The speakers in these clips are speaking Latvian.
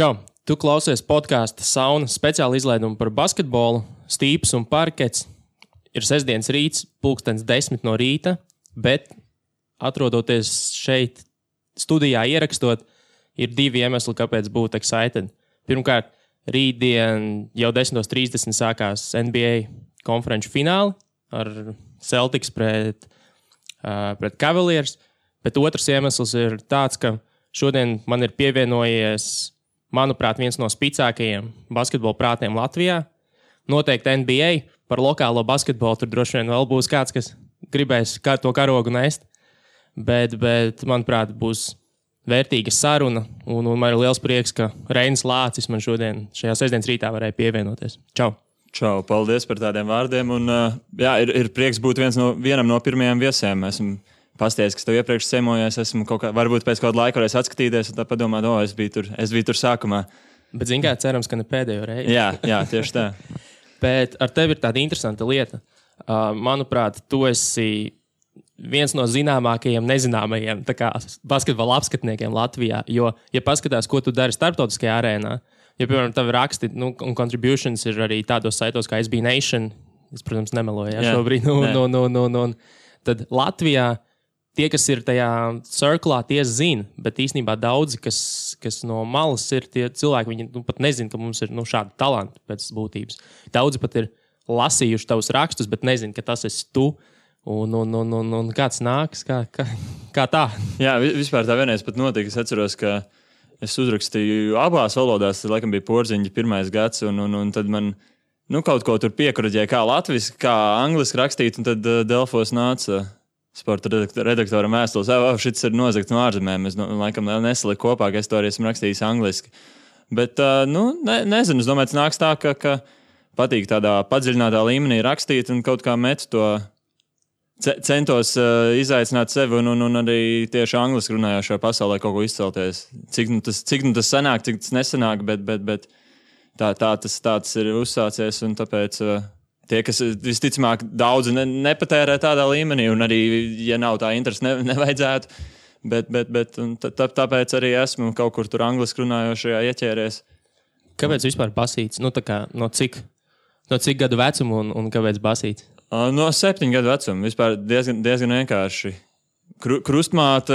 Čau! Tu klausies podkāsta Sauna speciāla izlaidumu par basketbolu, stīps un parkets. Ir sestdienas rīts, 10:00 no rīta, bet atrodoties šeit studijā ierakstot, ir divi iemesli, kāpēc būt excited. Pirmkārt, rītdien jau 10:30 sākās NBA konferenču fināli ar Celtics pret Cavaliers, bet otrs iemesls ir tāds, ka šodien man ir pievienojies, manuprāt, viens no spicākajiem basketbola prātiem Latvijā. Noteikti NBA par lokālo basketbolu tur droši vien vēl būs kāds, kas gribēs to karogu nest, bet manuprāt, būs vērtīga saruna, un man ir liels prieks, ka Reinis Lācis man šodien šajā sestdienas rītā varēja pievienoties. Čau! Čau, paldies par tādiem vārdiem, un ir prieks būt vienam no pirmajiem viesiem. Esmu pasties, kas tev iepriekš semojies, esmu varbūt pēc kāda laika varēs atskatīties un tā padomāt, es biju tur sākumā. Bet zini kā, cerams, ka ne pēdējo reizi. Jā, tieši tā. Bet ar tevi ir tāda interesanta lieta. Manuprāt, tu esi viens no zināmākajiem, nezināmajiem basketbola apskatniekiem Latvijā, jo, ja paskatās, ko tu dari starptautiskajā arēnā, ja, piemēram, tavi raksti un contributions ir arī tādos saitos kā SB Nation, es, protams, nemeloju šobrīd, tad Latvijā tie, kas ir tajā cirklā, tie zina, bet īstenībā daudzi, kas no malas ir tie cilvēki, viņi pat nezina, ka mums ir šādi talanti pēc būtības. Daudzi pat ir lasījuši tavus rakstus, bet nezina, ka tas esi tu. Un kāds nāks, kā tā? Jā, vispār tā vienreiz pat notika. Es atceros, ka es uzrakstīju abās valodās, tad laikam bija Porziņģa 1. gads, un tad man kaut ko tur piekuraģēja, kā latviski, kā angliski rakstīt, un tad Delfos nāca sporta redaktoram vēstules, šis ir nozagts no ārzemēm. Es laikam nesaliku kopā, ka es to arī esmu rakstījis angliski. Bet, nezinu, es domāju, tas nāks tā, ka patīk tādā padziļinātā līmenī rakstīt un kaut kā met to centos izaicināt sevi un arī tieši angliski runājošā pasaulē kaut ko izcelties. Cik tas sanāk, cik tas nesanāk, bet tā tas ir uzsācies, un tāpēc tie, kas visticamāk daudzi nepatērē tādā līmenī, un arī, ja nav tā interesi, nevajadzētu, bet tāpēc arī esmu kaut kur tur angliski runājošajā ieķēries. Kāpēc vispār basīts? No cik gadu vecuma un kāpēc basīts? No 7 gadu vecuma. Vispār diezgan vienkārši. Krustmāte,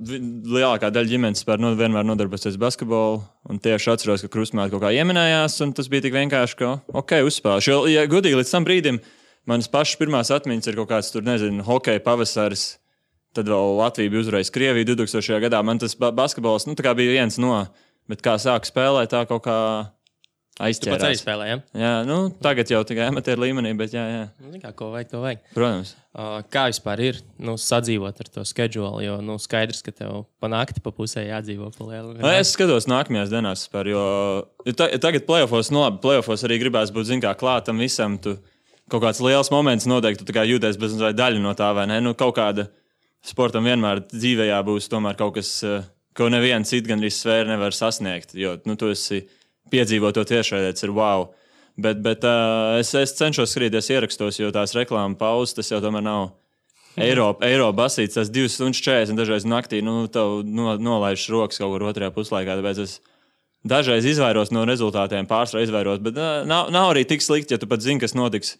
lielākā daļa ģimenes vienmēr nodarbosies basketbolu, un tieši atceros, ka krustmāte kaut kā ieminējās, un tas bija tik vienkārši, ka uzspēlēšu. Ja godīgi līdz tam brīdim, manas pašas pirmās atmiņas ir kaut kāds tur, nezinu, hokeja pavasaris, tad vēl Latvija bija uzvarējusi Krieviju 2000. gadā. Man tas basketbols, tā kā bija viens no, bet kā sāku spēlēt, tā kaut kā aizķērās. Tu pats arī spēlē, ja? Jā, tagad jau tikai amatieru līmenī, bet jā. Ko vajag, to vajag. Protams. Kā vispār ir sadzīvot ar to scheduli, jo skaidrs, ka tev pa nakti pa pusē jādzīvo pa lielu. Es skatos nākamajās dienās vispār, jo tagad play-offos arī gribās būt, klātam visam. Tu kaut kāds liels moments noteikti, tu tā kā jūties bez daļa no tā, vai ne? Kaut kāda sportam vienmēr dzīvē būs tomēr kaut kas, ko neviens cits gan arī sfēra nevar sasniegt, jo tu esi piedzīvot to tiešraidē, tas ir wow. Bet es cenšos skatīties ierakstos, jo tās reklāma pauzes, tas jau tomēr nav eiro basīts, tas 2:40 dažreiz naktī, tev nolaižas rokas kaut kur otrajā puslaikā, tāpēc es dažreiz izvairos no rezultātiem, pārsvarā izvairos, bet nav arī tik slikti, ja tu pat zini, kas notiks,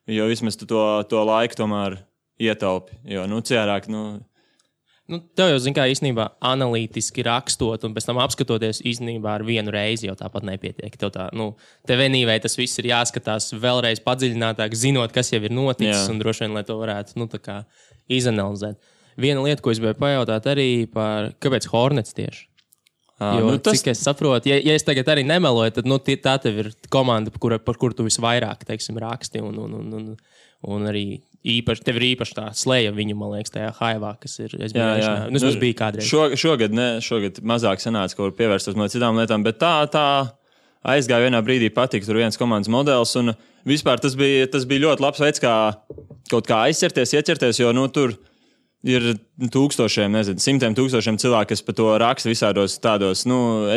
jo vismaz tu to laiku tomēr ietaupi, jo ciērāk, tev jau, kā īstenībā analītiski rakstot un pēc tam apskatoties īstenībā ar vienu reizi jau tāpat nepietiek. Tev vienīvai tas viss ir jāskatās vēlreiz padziļinātāk, zinot, kas jau ir noticis, un droši vien, lai to varētu izanalizēt. Viena lieta, ko es gribēju pajautāt arī par, kāpēc Hornets tieši? Jo, cik es saprotu, ja es tagad arī nemeloju, tad tā tev ir komanda, par kuru tu visvairāk, raksti un arī tev ir īpaši tā slēja viņu, man liekas, tajā haivā, kas ir SBA. Tas bija kādreiz. Šogad mazāk sanāca, ko var pievērstos no citām lietām, bet tā aizgāja vienā brīdī patika tur viens komandas modelis, un vispār tas bija ļoti labs veids, kā kaut kā ieķerties, jo tur ir simtiem tūkstošiem cilvēku, kas par to raksta visādos tādos,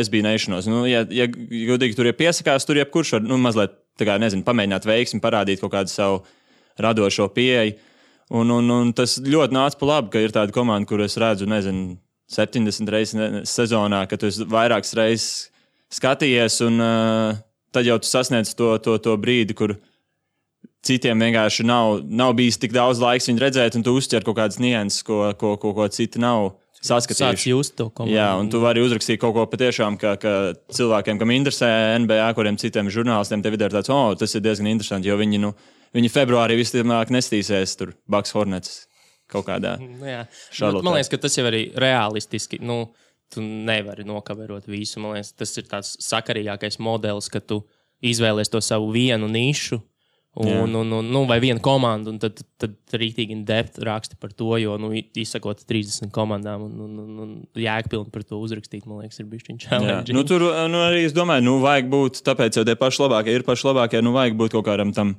SB Nationos. Ja godīgi tur piesakās, tur jebkurš var, mazliet, pamēģināt veiksmi, parādīt kaut kādu savu radošo pieeju. Un tas ļoti nāca pa labi, ka ir tāda komanda, kur es redzu, 70 reizes sezonā, ka tu esi vairākas reizes skatījies, un tad jau tu sasniedz to brīdi, kur citiem vienkārši nav bijis tik daudz laiks viņu redzēt, un tu uztver kaut kādas nianses, ko citi nav saskatījuši. Sāc just to komandu. Jā, un tu vari uzrakstīt kaut ko patiešām, ka cilvēkiem, kam interesē NBA, kuriem citiem žurnālistiem, tev ir tāds, tas ir diezgan interesanti, jo viņi februārī visticamāk nestīsies tur Bucks Hornets kaut kādā šarlotē. Man liekas, ka tas jau arī realistiski, tu nevari nokaverot visu. Man liekas, tas ir tāds sakarīgākais modelis, ka tu izvēlies to savu vienu nišu, vai vienu komandu, un tad rītīgi in depth raksti par to, jo, izsakot 30 komandām un jēgpilni par to uzrakstīt, man liekas, ir bišķiņ challenge. Tur arī es domāju, vajag būt, tāpēc jau tie paši labākie, vajag būt kaut kādam tam,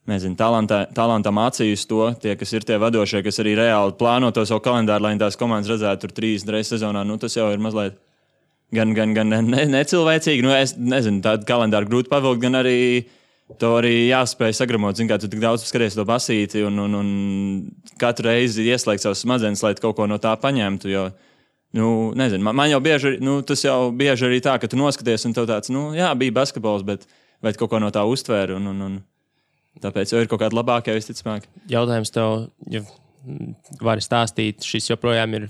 nezinu, talantam acīs to, tie, kas ir tie vadošie, kas arī reāli plāno to savu kalendāru, lai tās komandas redzētu tur 30 reizes sezonā, tas jau ir mazliet gan necilvēcīgi, es nezinu, tādu kalendāru grūti pavilkt, gan arī to arī jāspēj sagramot, kā tu tik daudz skaties to basīti un katru reizi ieslēgt savus smadzenes, lai kaut ko no tā paņemtu, jo, nezinu, man jau bieži, tas jau bieži arī tā, ka tu noskaties un tev tāds, bija basketbols, bet kaut ko no tā uztvēri un tāpēc jau ir kaut kāda labākā visticamāk. Jautājums tev, ja vari stāstīt, šis joprojām ir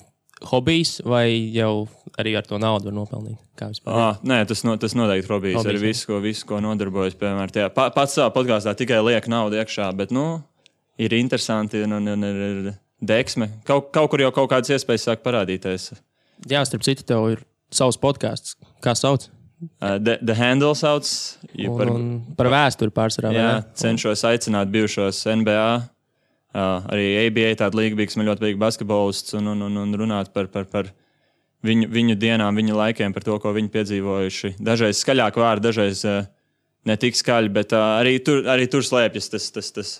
hobijs vai jau arī ar to naudu var nopelnīt? Nē, tas noteikti hobijs. Arī visu, ko nodarbojas, piemēram, pats savā podkāstā tikai liek naudu iekšā, bet, ir interesanti un ir deksme. Kaut kur jau kaut kādas iespējas sāk parādīties. Jā, starp citu, tev ir savs podkāsts. Kā sauc? The Handle sauc. Par vēsturi pārsvarā. Jā, cenšos aicināt bijušos NBA, arī ABA tādu līgu, kas man ļoti patīk basketbolists un runāt par viņu dienām, viņu laikiem, par to, ko viņi piedzīvojuši. Dažreiz skaļāk vārdi, dažreiz ne tik skaļi, bet arī tur slēpjas tas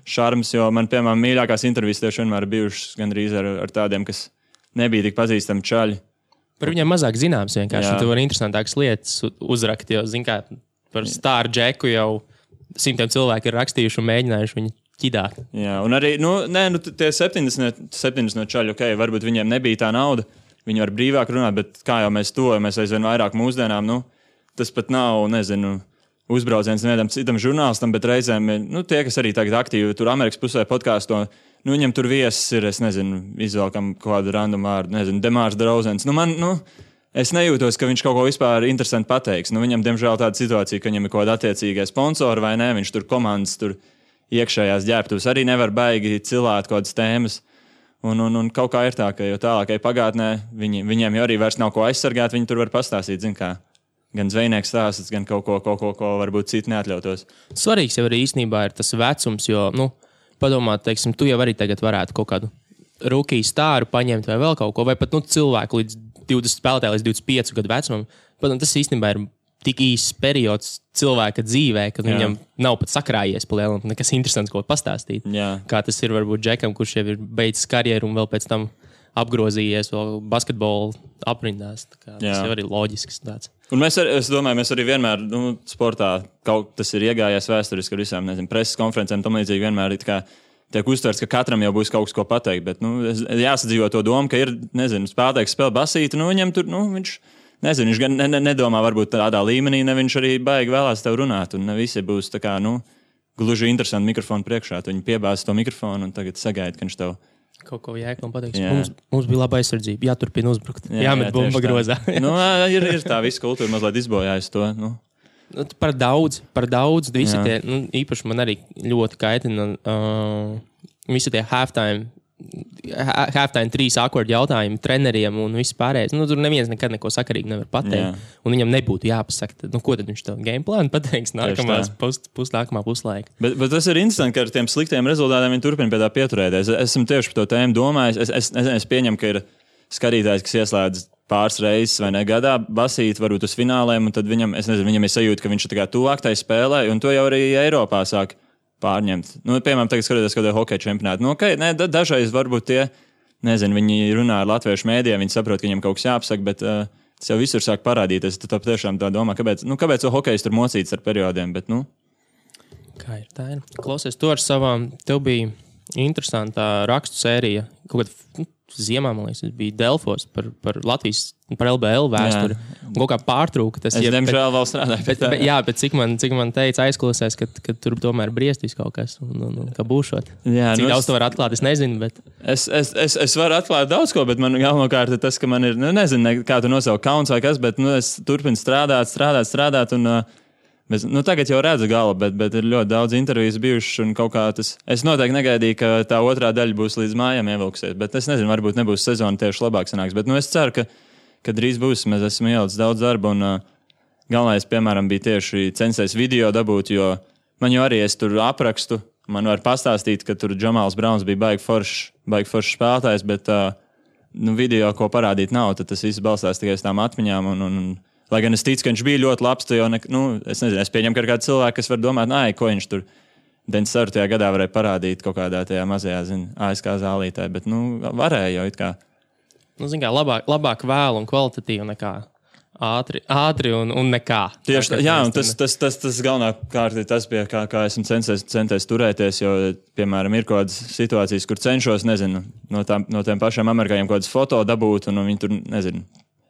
šarms, jo man, piemēram, mīļākās intervijas tieši vienmēr bijušas gandrīz ar tādiem, kas nebija tik pazīstami čaļi. Par viņiem mazāk zināms vienkārši. Tu vari interesantākas lietas uzrakt, jo, par Star Jacku jau simtiem cilvēki ir rakstījuši un mēģinājuši viņu ķidāt. Jā, un arī, tie 70 no čaļu, varbūt viņiem nebija tā nauda, viņi var brīvāk runāt, bet kā jau mēs tojamies aizvien vairāk mūsdienām, tas pat nav, nezinu, uzbrauciens nevienam citam žurnālistam, bet reizēm, tie, kas arī tagad aktīvi tur Amerikas pusē podkāsto, viņam tur viesis ir, es nezinu, izvēlkam kādu random vārdu, nezinu, Demārs Drauzens. Es nejūtos, ka viņš kaut ko vispār interesanti pateiks. Viņam, diemžēl, tāda situācija, ka viņam ir kaut kāda attiecīgā sponsora vai nē, viņš tur komandas, tur iekšējās ģērbtuves arī nevar baigi cilāt kaut kādas tēmas. Un kaut kā ir tā, ka jo tālākai pagātnē viņiem jau arī vairs nav ko aizsargāt, viņi tur var pastāstīt, gan zvejnieks stāsts, gan kaut ko varbūt citi neatļautos. Svarīgs jau arī īstenībā ir tas vecums, jo, padomāt, teiksim, tu jau arī tagad varētu kaut kādu rookie stāru paņemt vai vēl kaut ko, vai pat cilvēku līdz 20 spēlētāji līdz 25 gadu vecumam. Padomāt, tas īstenībā ir tik īsts periods cilvēka dzīvē, ka viņam nav pat sakrājies pa lielam, nekas interesants, ko pastāstīt. Jā. Kā tas ir varbūt Džekam, kurš jau ir beidzis karjeru un vēl pēc tam apgrozījies vēl basketbolu aprindās. Tas jau arī loģisks tāds. Un es domāju, mēs arī vienmēr, sportā, tas ir iegājies vēsturiski ar visām, preses konferencēm, tam līdzīgi vienmēr tiek uztverts, ka katram jau būs kaut kas, ko pateikt, bet, jāsadzīvo to domu, ka ir, spēlētājs spēlē basīti, viņam tur, viņš, viņš gan nedomā varbūt tādā līmenī, ne viņš arī baigi vēlās tev runāt, un ne visi būs tā kā, gluži interesanti mikrofonu priekšā, tu viņi piebāz to mikrofonu un tagad sagaida, ka viņš tev kaut ko jēklam pateiks. Mums bija laba aizsardzība, jāturpina uzbrukt. Jāmet bumba grozā. Ir tā visa kultūra mazliet izbojājusi to. Par daudz visi tie, īpaši man arī ļoti kaitina visi tie halftime 3 awkward jautājumi treneriem un viss pārējais. Tur neviens nekad neko sakarīgi nevar pateikt. Un viņam nebūtu jāpasaka, ko tad viņš tev game plānu pateiks nākamā puslaika. Bet tas ir interesanti, ka ar tiem sliktiem rezultātiem viņi turpina pie tā pieturēties. Esmu tieši par to tēmu domājis. Es pieņemu, ka ir skatītājs, kas ieslēdz pāris reizes vai ne gadā basīt varbūt uz fināliem, un tad viņam ir sajūta, ka viņš ir tuvāk tai spēlē, un to jau arī Eiropā sāk pārņemt. Piemēram, tagad skatoties kaut kādā hokeja čempionātā. Dažreiz varbūt tie, viņi runā ar latviešu mēdījiem, viņi saprot, ka viņiem kaut kas jāapsaka, bet tas jau visur sāk parādīties. Tu tiešām tā domā, kāpēc to hokejs tur mocīts ar periodiem, bet, Kā ir, tā ir. Klausies, tu ar savām, tev bija interesantā rakstu sērija, kaut kāda ziemā, man liekas, tas bija Delfos par Latvijas, par LBL vēsturi. Un kaut kā pārtrūka tas. Es diemžēl vēl strādāju. Bet cik man teica aizklausēs, ka tur tomēr briestīs kaut kas un ka būšot. Jā, cik daudz to var atklāt, es nezinu, bet... Es varu atklāt daudz ko, bet man galvenokārt ir tas, ka man ir, nezinu, kā tu nosaukt kauns vai kas, bet es turpinu strādāt un... tagad jau redzu galu, bet ir ļoti daudz intervijas bijušas un kaut kā tas... Es noteikti negaidīju, ka tā otrā daļa būs līdz mājām ievilksies, bet es nezinu, varbūt nebūs sezona tieši labāk sanāks, bet es ceru, ka drīz būs. Mēs esam ielicis daudz darba un galvenais, piemēram, bija tieši censties video dabūt, jo man jau arī es tur aprakstu, man var pastāstīt, ka tur Džamāls Brauns bija baigi foršs spēlētājs, bet video, ko parādīt nav, tad tas viss balstās tikai uz tām atmiņām un lai gan es ticu, ka viņš bija ļoti labs, to jau es nezinu, es pieņemu, ka ir kāds cilvēks, kas var domāt, ko viņš tur 94. gadā varēja parādīt kaut kādā tajā mazajā, ASK zālītē, bet, varēja jau it kā. Zin kā, labāk vēl un kvalitatīvi nekā ātri un nekā. Tieši tā, jā, un tas galvenā kārt ir tas, pie kā esmu centies turēties, jo, piemēram, ir kaut kādas situācijas, kur cenšos, nezinu, no tiem pašiem amerikāņiem kaut kādas foto dabūt, un viņi tur, nezinu,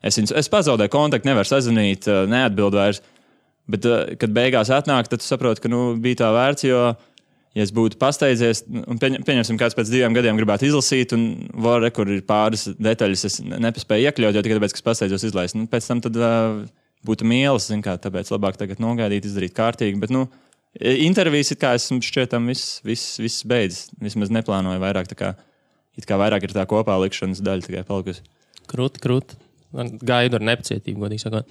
Es pazaudēju kontaktu, nevaru sazvanīt, neatbildu vairs. Bet, kad beigās atnāk, tad tu saproti, ka bija tā vērts, jo, ja es būtu pasteidzies, un pieņemsim, kāds pēc 2 gadiem gribētu izlasīt, un kur ir pāris detaļas, es nepaspēju iekļaut, jo tikai tāpēc, ka es pasteidzos izlaist. Pēc tam tad būtu mīlas, tāpēc labāk tagad nogaidīt, izdarīt kārtīgi. Bet, intervijas, it kā esmu šķietam, viss beidzis. Vismaz neplānoju vairāk, it kā vairāk ir tā kopā likšanas daļa tikai palikusi. Krūti. Gaidu ar nepacietību, godīgi sakot.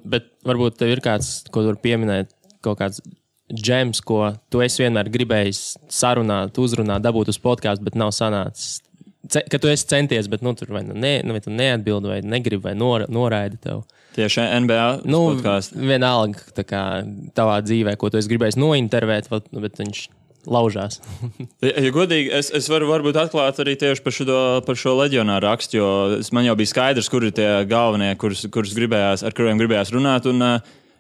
Bet varbūt tev ir kāds, ko tu vari pieminēt, kaut kāds džems, ko tu esi vienmēr gribējis sarunāt, uzrunāt, dabūt uz podcastu, bet nav sanācis. Ka tu esi centies, bet tur vai tu neatbildi, vai negribi, vai noraidi tev. Tieši NBA podcastu. Vienalga tā kā tavā dzīvē, ko tu esi gribējis nointervēt, bet viņš... laužās. Ja godīgi, es varu varbūt atklāt arī tieši par šo leģionāru rakstu, jo man jau bija skaidrs, kur ir tie galvenie, ar kuriem gribējās runāt, un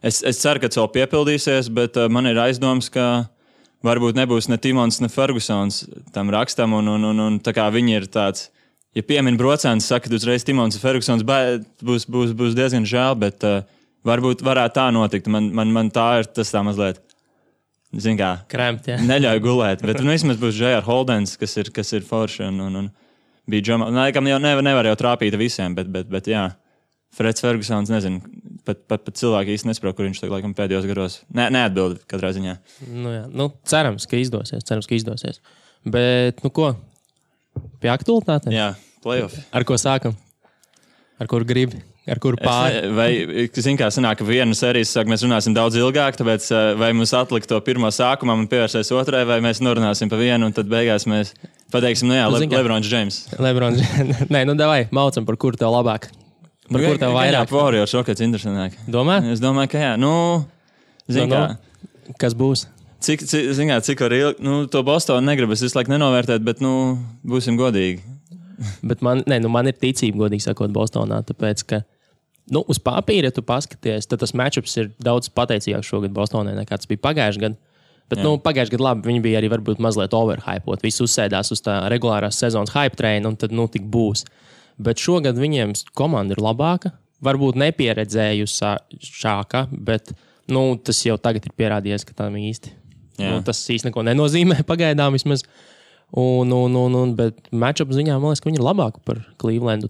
es ceru, ka tas vēl piepildīsies, bet man ir aizdoms, ka varbūt nebūs ne Timons, ne Fergusons tam rakstam, un tā kā viņi ir tāds, ja piemin brocēns, saka, ka uzreiz Timons un Fergusons būs diezgan žēl, bet varbūt varētu tā notikt. Man tā ir tas tā mazliet. Zin kā, Kremt, jā. Neļauj gulēt, bet vismaz būs J.R. Holdens, kas ir forši, un bija Džamāls. Laikam jau nevar jau trāpīt visiem, bet jā, Freds Fergusons, nezinu, pat cilvēki īsti nesaprot, kur viņš laikam pēdējos garos neatbild katrā ziņā. Jā, cerams, ka izdosies. Bet, ko, pie aktualitātēm? Jā, playoff. Ar ko sākam? Ar kur gribi? Ar kuru pāri? Vai, zin kā, sanāk, ka vienu sēriju mēs runāsim daudz ilgāk, tāpēc vai mums atlikt to pirmo sākumam un pievērsties otrai, vai mēs norunāsim pa vienu, un tad beigās mēs pateiksim, Lebrons James. Nē, davai, maucam, par kuru tev labāk. Par kuru tev vairāk. Warriors, šokats interesantāk. Domā? Es domāju, ka jā. Zin kā. Kas būs? Cik var ilgi, to Bostonu negribas visu laiku nenovērtēt, bet, būsim godīgi. Bet man ir ticība, godīgi sakot, Bostonā, tāpēc, ka uz papīra, ja tu paskaties, tad tas matchups ir daudz pateicīgāks šogad Bostonai, nekā tas bija pagājušajā gadā. Bet, pagājušajā gadā labi, viņi bija arī varbūt mazliet overhypot. Visi uzsēdās uz tā regulārās sezonas hype traina, un tad, tik būs. Bet šogad viņiem komanda ir labāka, varbūt nepieredzējušāka, bet, tas jau tagad ir pierādījies, ka tam īsti. Tas īsti neko nenozīmē pagaidām vismaz. Bet matchup ziņā, man liekas, ka viņi ir labāki par Clevelandu,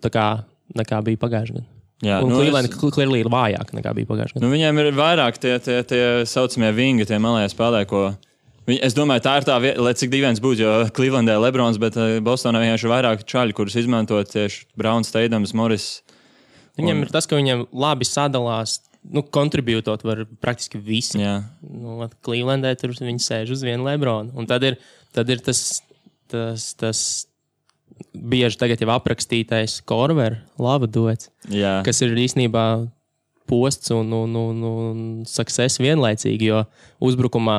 nekā bija pagājušajā gadā. Jā, Cleveland clearly ir vājāk nekā bija pagājušajā gadā. Viņiem ir vairāk tie saucamie vingi, tie malējie spēlē, ko... Es domāju, tā ir tā vieta, lai cik dīvains būtu, jo Clevelandē Lebrons, bet Bostonā vienkārši ir vairāk čaļi, kurus izmantot tieši Browns, Teidams, Morris. Viņiem ir tas, ka viņiem labi sadalās, kontribūtot var praktiski visi. Clevelandē tur viņi sēž uz vienu Lebronu. Un tad ir tas bieži tagad jau aprakstītais Korver, lava duets, kas ir īstenībā posts un success vienlaicīgi, jo uzbrukumā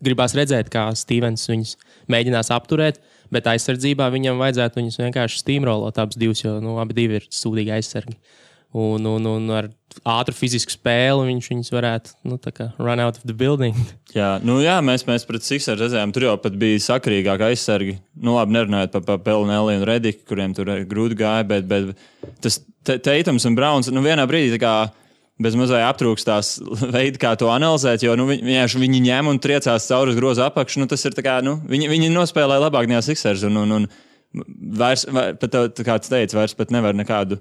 gribās redzēt, kā Stevens viņus mēģinās apturēt, bet aizsardzībā viņam vajadzētu viņus vienkārši steamrollot abus divus, jo abi divi ir sūdīgi aizsargi. un ar ātru fizisku spēli viņus varētu run out of the building. Jā, mēs pret Sixers redzējām, tur jau pat bija sakarīgāk aizsargi. Labi, nerunājot par Pelnelli un Rediku, kuriem tur grūti gāja, bet tas Teitums un Browns, vienā brīdī tā kā bez mazliet aptrūkstās veidi, kā to analizēt, jo viņi ņem un triecās cauri uz grozu apakšu. Tas ir tā kā, viņi nospēlēja labāk nekā Sixers un vairs, pat kā tu teici, vairs pat nevar nekādu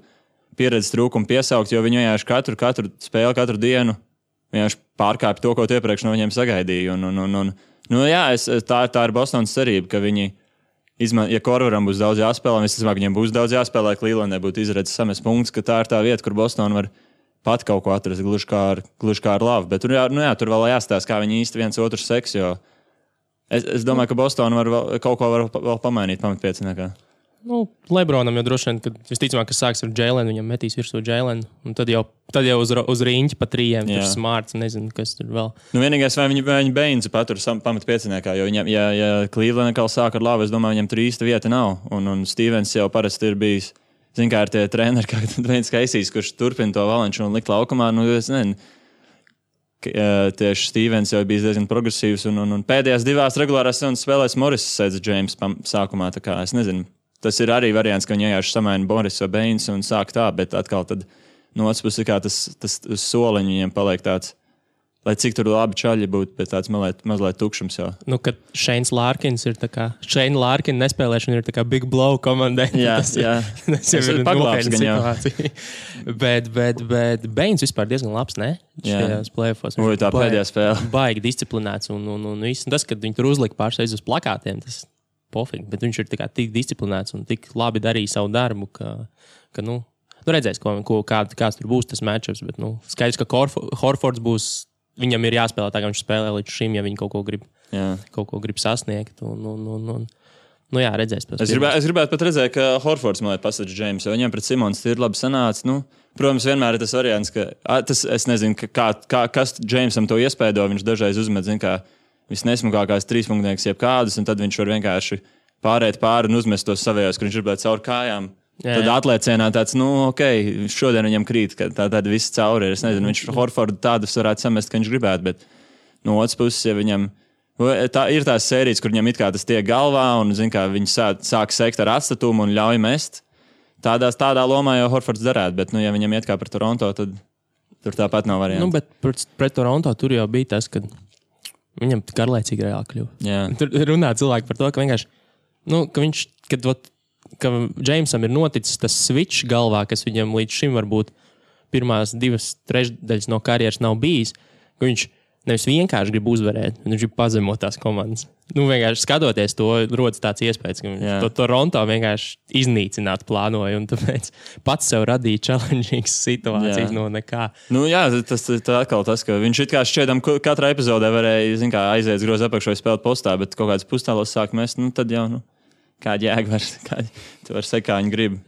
pieredzes trūkumu piesaukt, jo viņi vienkārši katru spēli, katru dienu vienkārši pārkāpj to, ko iepriekš no viņiem sagaidīja. Tā ir Bostonas cerība, ka viņi, ja Korveram būs daudz jāspēlē, es domāju, ka viņiem būs daudz jāspēlē, Clevelandē būtu izredzes samest punktus, ka tā ir tā vieta, kur Bostona var pat kaut ko atrast, gluži kā ar labu. Bet tur vēl jāstāsta, kā viņi īsti viens otru seks, jo es domāju, ka Bostona var kaut ko vēl pamainīt pamatpieciniekā. Lebronam jau droši vien, kad visticamāk, kas sāks ar Jēlenu, viņam metīs virsū Jēlenu, un tad jau uz riņķi pa trījiem, tur Smarts, nezinu, kas tur vēl. Vienīgais, vai viņi Bainsu patur pamatpieciniekā, jo viņam, ja Cleveland atkal sāk ar labu, es domāju, viņam tur īsta vieta nav, un Stevens jau parasti ir bijis, zin kā ar tie treneri, kā Dwayne Casey's, kurš turpina to valanšu un likt laukumā, es nezinu, tieši Stevens jau bijis diezgan progresīvs, un pēdējās divās regulārās sezonas spēlēs Morris sēdz James sākumā, tā kā es nezinu. Tas ir arī variants, ka viņi vienkārši samaina Boris vai Bains un sāk tā, bet atkal tad no otras puses kā tas soliņš viņiem paliek tāds, lai cik tur labi čaļi būtu, bet tāds mazliet tukšums jau. Kad Shanes Larkins ir tā kā, Shane Larkin nespēlēšana ir tā kā big blow komandai. Jā. Tas jau ir nopietna situācija. bet Bains vispār diezgan labs, ne? Šajās playoffos. Tā pēdējā spēle. Baigi disciplinēts un viss. Tas, kad viņi tur uzlika pārsteidz uz plakātiem, tas pofīgi, bet viņš ir tik disciplinēts un tik labi darīja savu darbu, ka redzēs, kāds tur būs tas matchups, bet skaidrs, ka Horfords būs, viņam ir jāspēlē tā, kā viņš spēlē līdz šim, ja viņi kaut ko grib sasniegt. Redzēs. Es gribētu pat redzēt, ka Horfords man pasaka James, jo viņam pret Simons ir labi sanāca. Protams, vienmēr ir tas variants, ka es nezinu, kas Jamesam to iespēdo, viņš dažreiz uzmet, kā visnesmukākās trīspunktnieks jebkādus, un tad viņš var vienkārši pārēt pāri un uzmest tos savējos, kur viņš ir cauri kājām. Tad atlēcienā tāds, šodien viņam krīt, ka tāda viss cauri ir. Es nezinu, viņš Horfordu tādus varētu samest, ka viņš gribētu, bet no otras puses, ja viņam ir tās sērijas, kur viņam it kā tas tiek galvā, un viņi sāk sekt ar atstatumu un ļauj mest, tādā lomā jau Horfords darētu, bet, ja viņam iet kā par Toronto, tad tur tāpat nav variantu. Bet pret Toronto tur jau bija tas, ka viņam garlaicīgi reāli kļuva. Tur runā cilvēki par to, ka vienkārši, ka Jamesam ir noticis tas switch galvā, kas viņam līdz šim varbūt pirmās 2/3 no karjeras nav bijis, ka viņš nevis vienkārši grib uzvarēt, viņš grib pazemot tās komandas. Vienkārši skatoties to, rodas tāds iespējas, ka viņš to Toronto vienkārši iznīcināt plānoja, un tāpēc pats sev radīja challengīgas situācijas no nekā. Tas atkal tas, ka viņš it kā šķiedam katrā epizodē varēja, aiziet grozu apakšu vai spēlēt postā, bet kaut kāds pustālos sāk mest, tad jau, kāda jēga tu var sekt, kā viņi grib.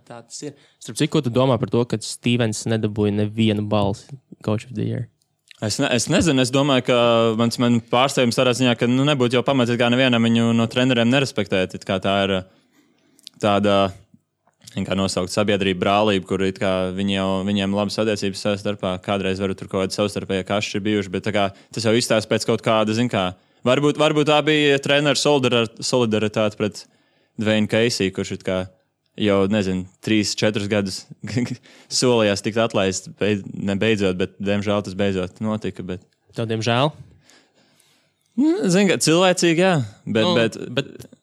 Tā tas ir. Starp citu, ko tu domā par to, ka Stevens nedabūja nevienu balsi Coach of the Year? Es nezinu, es domāju, ka man pārsteigums tādā ziņā, ka nebūtu jau pamats, kā nevienam viņu no treneriem nerespektēt. Kā tā ir tāda, kā nosaukt, sabiedrība brālība, kur viņiem labas attiecības savā starpā. Kādreiz varu tur kaut kādi savstarpēji kašķi ir bijuši, bet tas jau izstāsta pēc kaut kāda, varbūt tā bija treneru solidaritāte pret Dwayne Casey, kurš jau, 3-4 gadus solījās tikt atlaists, nebeidzot, bet, diemžēl, tas beidzot notika. Tev, diemžēl? Cilvēcīgi, jā. Bet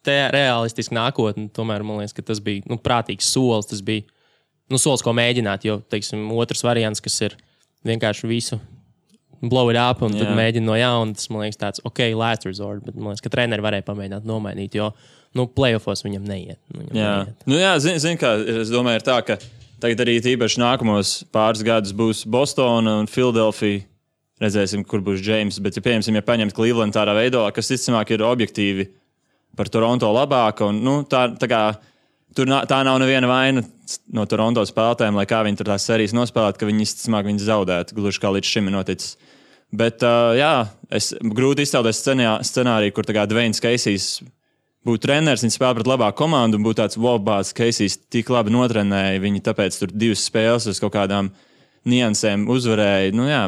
te realistiski nākotne, tomēr, man liekas, ka tas bija prātīgs solis. Tas bija solis, ko mēģināt, jo, otrs variants, kas ir vienkārši visu blow it up un tad mēģina no jauna, tas, man liekas, tāds, last resort, bet, man liekas, ka treneri varēja pamēģināt nomainīt, jo playoffos viņam neiet. Zini, kā es domāju, ir tā, ka tagad arī tīpaši nākamos pāris gadus būs Bostona un Philadelphia. Redzēsim, kur būs James. Bet, ja paņemt Cleveland tādā veidā, kas visticamāk ir objektīvi par Toronto labāka, un tā nav neviena vaina no Toronto spēlētājiem, lai kā viņi tur tās sērijas nospēlētu, ka viņi visticamāk viņas zaudētu, gluži kā līdz šim ir noticis. Bet, es grūti iztēloties scenāriju, kur Dwayne Casey's būtu treneris, viņi spēlē pret labāku komandu un būtu tāds Wobāts, Keisijs tik labi notrenēja, viņi tāpēc tur 2 spēles uz kaut kādām niansēm uzvarēja. Nu jā,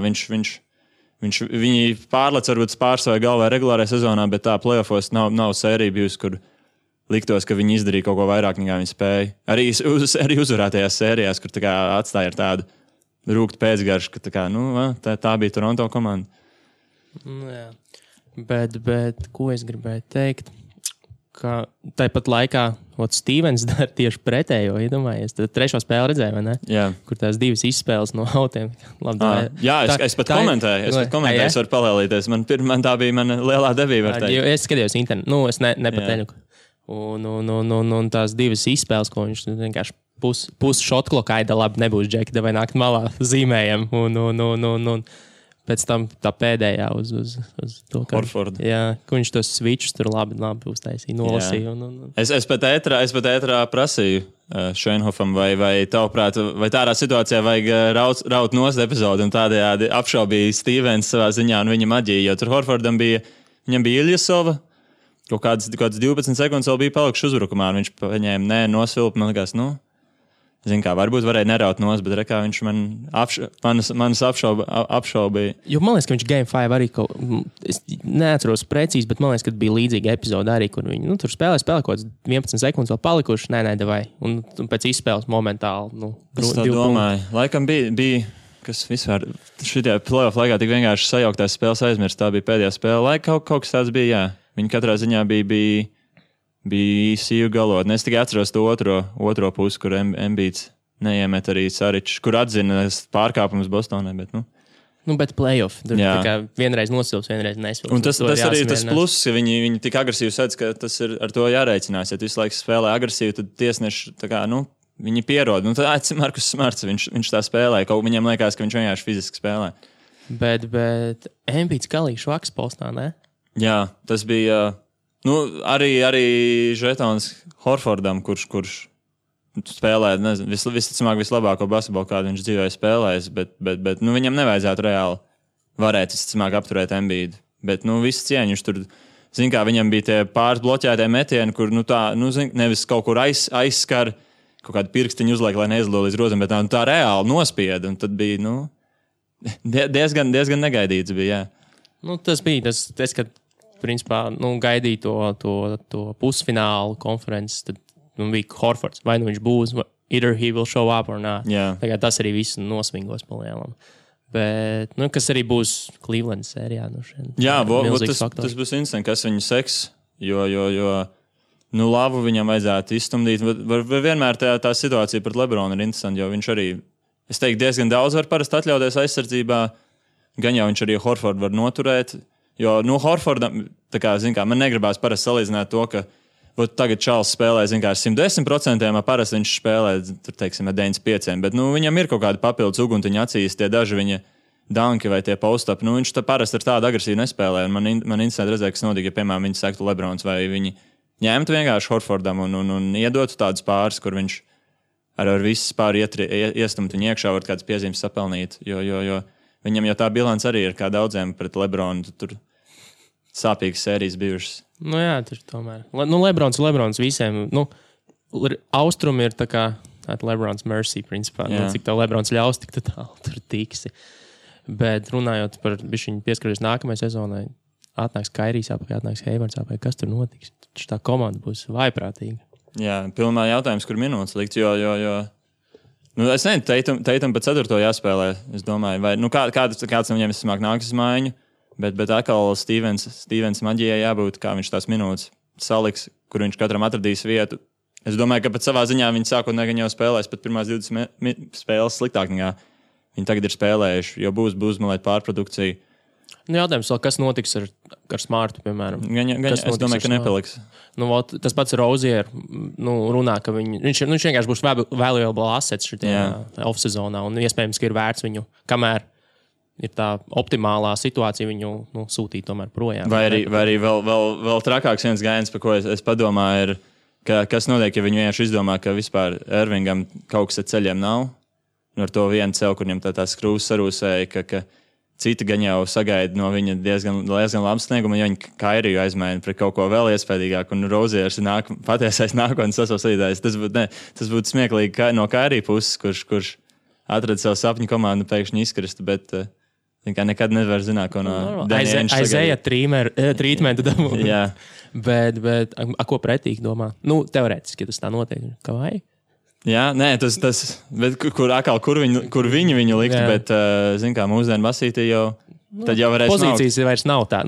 viņi pārlec varbūt pārstāvēja galvā regulārajā sezonā, bet tā playoffos nav sērija bijusi, kur liktos, ka viņi izdarīja kaut ko vairāk, nekā viņi spēja. Arī uzvarētajās sērijās, kur tā kā atstāja ar tādu rūktu pēcgaršu, ka tā bija Toronto komanda. Jā. Bet ko es gribēju teikt? Ka tāpat laikā Stevens dara tieši pretējo, iedomājies. Tad 3. spēli redzēja, vai ne? Jā. Kur tās 2 izspēles no autiem. Jā, es pat komentēju. Es varu palēlīties. Man tā bija mana lielā debība. Es skatījos internetu. Es nepatēļu. Un tās 2 izspēles, ko viņš vienkārši pus šotkloka aida labi nebūs džeki, vai nākt malā zīmējam. Un pēc tam tā pēdējā uz to, ka viņš tos switchus tur labi uztaisīja, nolasīja. Es pat ētrā prasīju Šeinhofam, vai tavuprāt, vai tādā situācijā vajag raut nost epizodi un tādējādi apšaubīja Stevens savā ziņā un viņa maģiju, jo tur Horfordam viņam bija Iljasova, kaut kādas 12 sekundes vēl bija palikuši uzbrukumā, un viņš paņēma nosvilpa, man likās, zin kā, varbūt varēja neraut nost, bet rekā viņš manas apšaubīja. Jo man liekas, ka viņš Game 5 arī es neatceros precīzi, bet man liekas, ka bija līdzīga epizode arī, kur viņi tur spēlē kaut kāds 11 sekundes vēl palikuši, davai. Un pēc izspēles momentāli, es tā domāju. Laikam bija, kas vispār šitajā playoff laikā tik vienkārši sajauktās spēles aizmirst. Tā bija pēdējā spēle. Kaut kas tāds bija, jā. Viņi katrā ziņā bija īsīju galotni. Es tikai atceros to otro pusi, kur Embiids neiemet arī Saričs, kur atzina pārkāpumus Bostonai, bet bet playoff. Tur tā kā vienreiz nosils, vienreiz nesils. Un tas arī tas pluss, ka viņi tik agresīvi sedz, ka tas ir ar to jārēķinās. Ja tu visu laiku spēlē agresīvi, tad tiesneši tā kā, viņi pierod. Tad Markus Smarts, viņš tā spēlē. Kaut viņam liekas, ka viņš vienkārši fiziski spēlē. Bet Embiids galīgi švaks postā, ne? Jā, tas bija... arī Žetons Horfordam, kurš spēlē, visticamāk, vislabāko basketbolu, kādu viņš dzīvē spēlējis, bet viņam nevajadzētu reāli varēt, visticamāk, apturēt Embiidu. Bet, viss cieņa, viņš tur, zin kā, viņam bija tie pāris bloķētie metieni, kur, nevis kaut kur aizskar, kaut kādu pirkstiņu uzliek, lai neizlo līdz rozam, bet tā reāli nospieda, un tad bija, diezgan negaidīts bija, jā. Tas bija tas, kad principā, gaidīja to pusfinālu konferences, tad bija Horfords. Vai viņš būs, either he will show up or not. Yeah. Tagad tas arī viss nosvingos palielam. Bet, kas arī būs Cleveland sērijā. Jā, tas būs interesanti, kas viņu seks, jo labu viņam vajadzētu izstumdīt. Vienmēr tā situācija pret Lebronu ir interesanti, jo viņš arī, es teiktu, diezgan daudz var parasti atļauties aizsardzībā, gan jau viņš arī Horfordu var noturēt. Jo, Horfordam, tā kā, man negribās parasti salīdzināt to, ka tagad Čāls spēlē, ar 110%, parasti viņš spēlē, tur, teiksim, ar 95%, bet, viņam ir kaut kāda papildus uguntiņa acīs, tie daži viņa danki vai tie post-up, viņš parasti ar tādu agresīvu nespēlē, un man interesanti redzēt, kas notika, ja, piemēram, viņi sektu Lebrons, vai viņi ņemtu vienkārši Horfordam un iedotu tādus pāris, kur viņš ar visu pāri iestumt viņu iekšā, var kādas piezīmes sapelnīt, jo viņam jau tā bilants arī ir kā daudziem pret Lebronu, tur sāpīgas sērijas bijušas. Jā, tur tomēr. Lebrons visiem, austrumi ir tā kā Lebrons mercy, principā. Cik tev Lebrons ļaus, tik tālu tur tiksi. Bet runājot par bišķiņu pieskaries nākamajai sezonai, atnāks Kairijs apakaļ, atnāks Heivards apakaļ, kas tur notiks? Tā komanda būs vaiprātīga. Jā, pilnā jautājums, kur minūtes likt, jo es nezinu, Teitam pa 4. jāspēlē, es domāju, vai, kāds no viņiem vismāk nāks uz mājiņu, bet atkal Stevens maģijai jābūt, kā viņš tās minūtes saliks, kur viņš katram atradīs vietu. Es domāju, ka pat savā ziņā viņi sākotnēji jau spēlēs pat pirmās 20 spēles sliktāk nekā viņi tagad ir spēlējuši, jo būs uzmalēt pārprodukciju. Jautājums vēl, kas notiks ar Smartu, piemēram? Es domāju, ka nepaliks. Tas pats Rozier runā, ka viņš vienkārši būs valuable assets šitajā off-sezonā, un iespējams, ka ir vērts viņu, kamēr ir tā optimālā situācija, viņu sūtīt tomēr projām. Vai arī vēl trakāks viens gājiens, par ko es padomāju, ir, kas notiek, ja viņi vienkārši izdomā, ka vispār Irvingam kaut kas ar ceļiem nav, un ar to vienu ceļu, kur viņam tā skrūvs sarūsēja, ka citi gan jau sagaida no viņa diezgan labu sniegumu, ja viņi Kairiju aizmaina pret kaut ko vēl iespējīgāku, un Roziers ir patiesais nākotnes sasaucītājs. Tas būtu smieklīgi no Kairija puses, kurš atrada savu sapņu komandu pēkšņi izkrist, bet nekad nevar zināt, ko no Danny Ainge aizēja trītmentu dabūt. Jā. Bet ko pretīgi domā? Nu, teorētiski, ja tas tā notiek, kā vai? Jā, nē, tas bet kur viņu likt, jā. Bet, zin kā, mūsdienu basītī jau, tad jau varēs pozīcijas maukt. Vairs nav tā,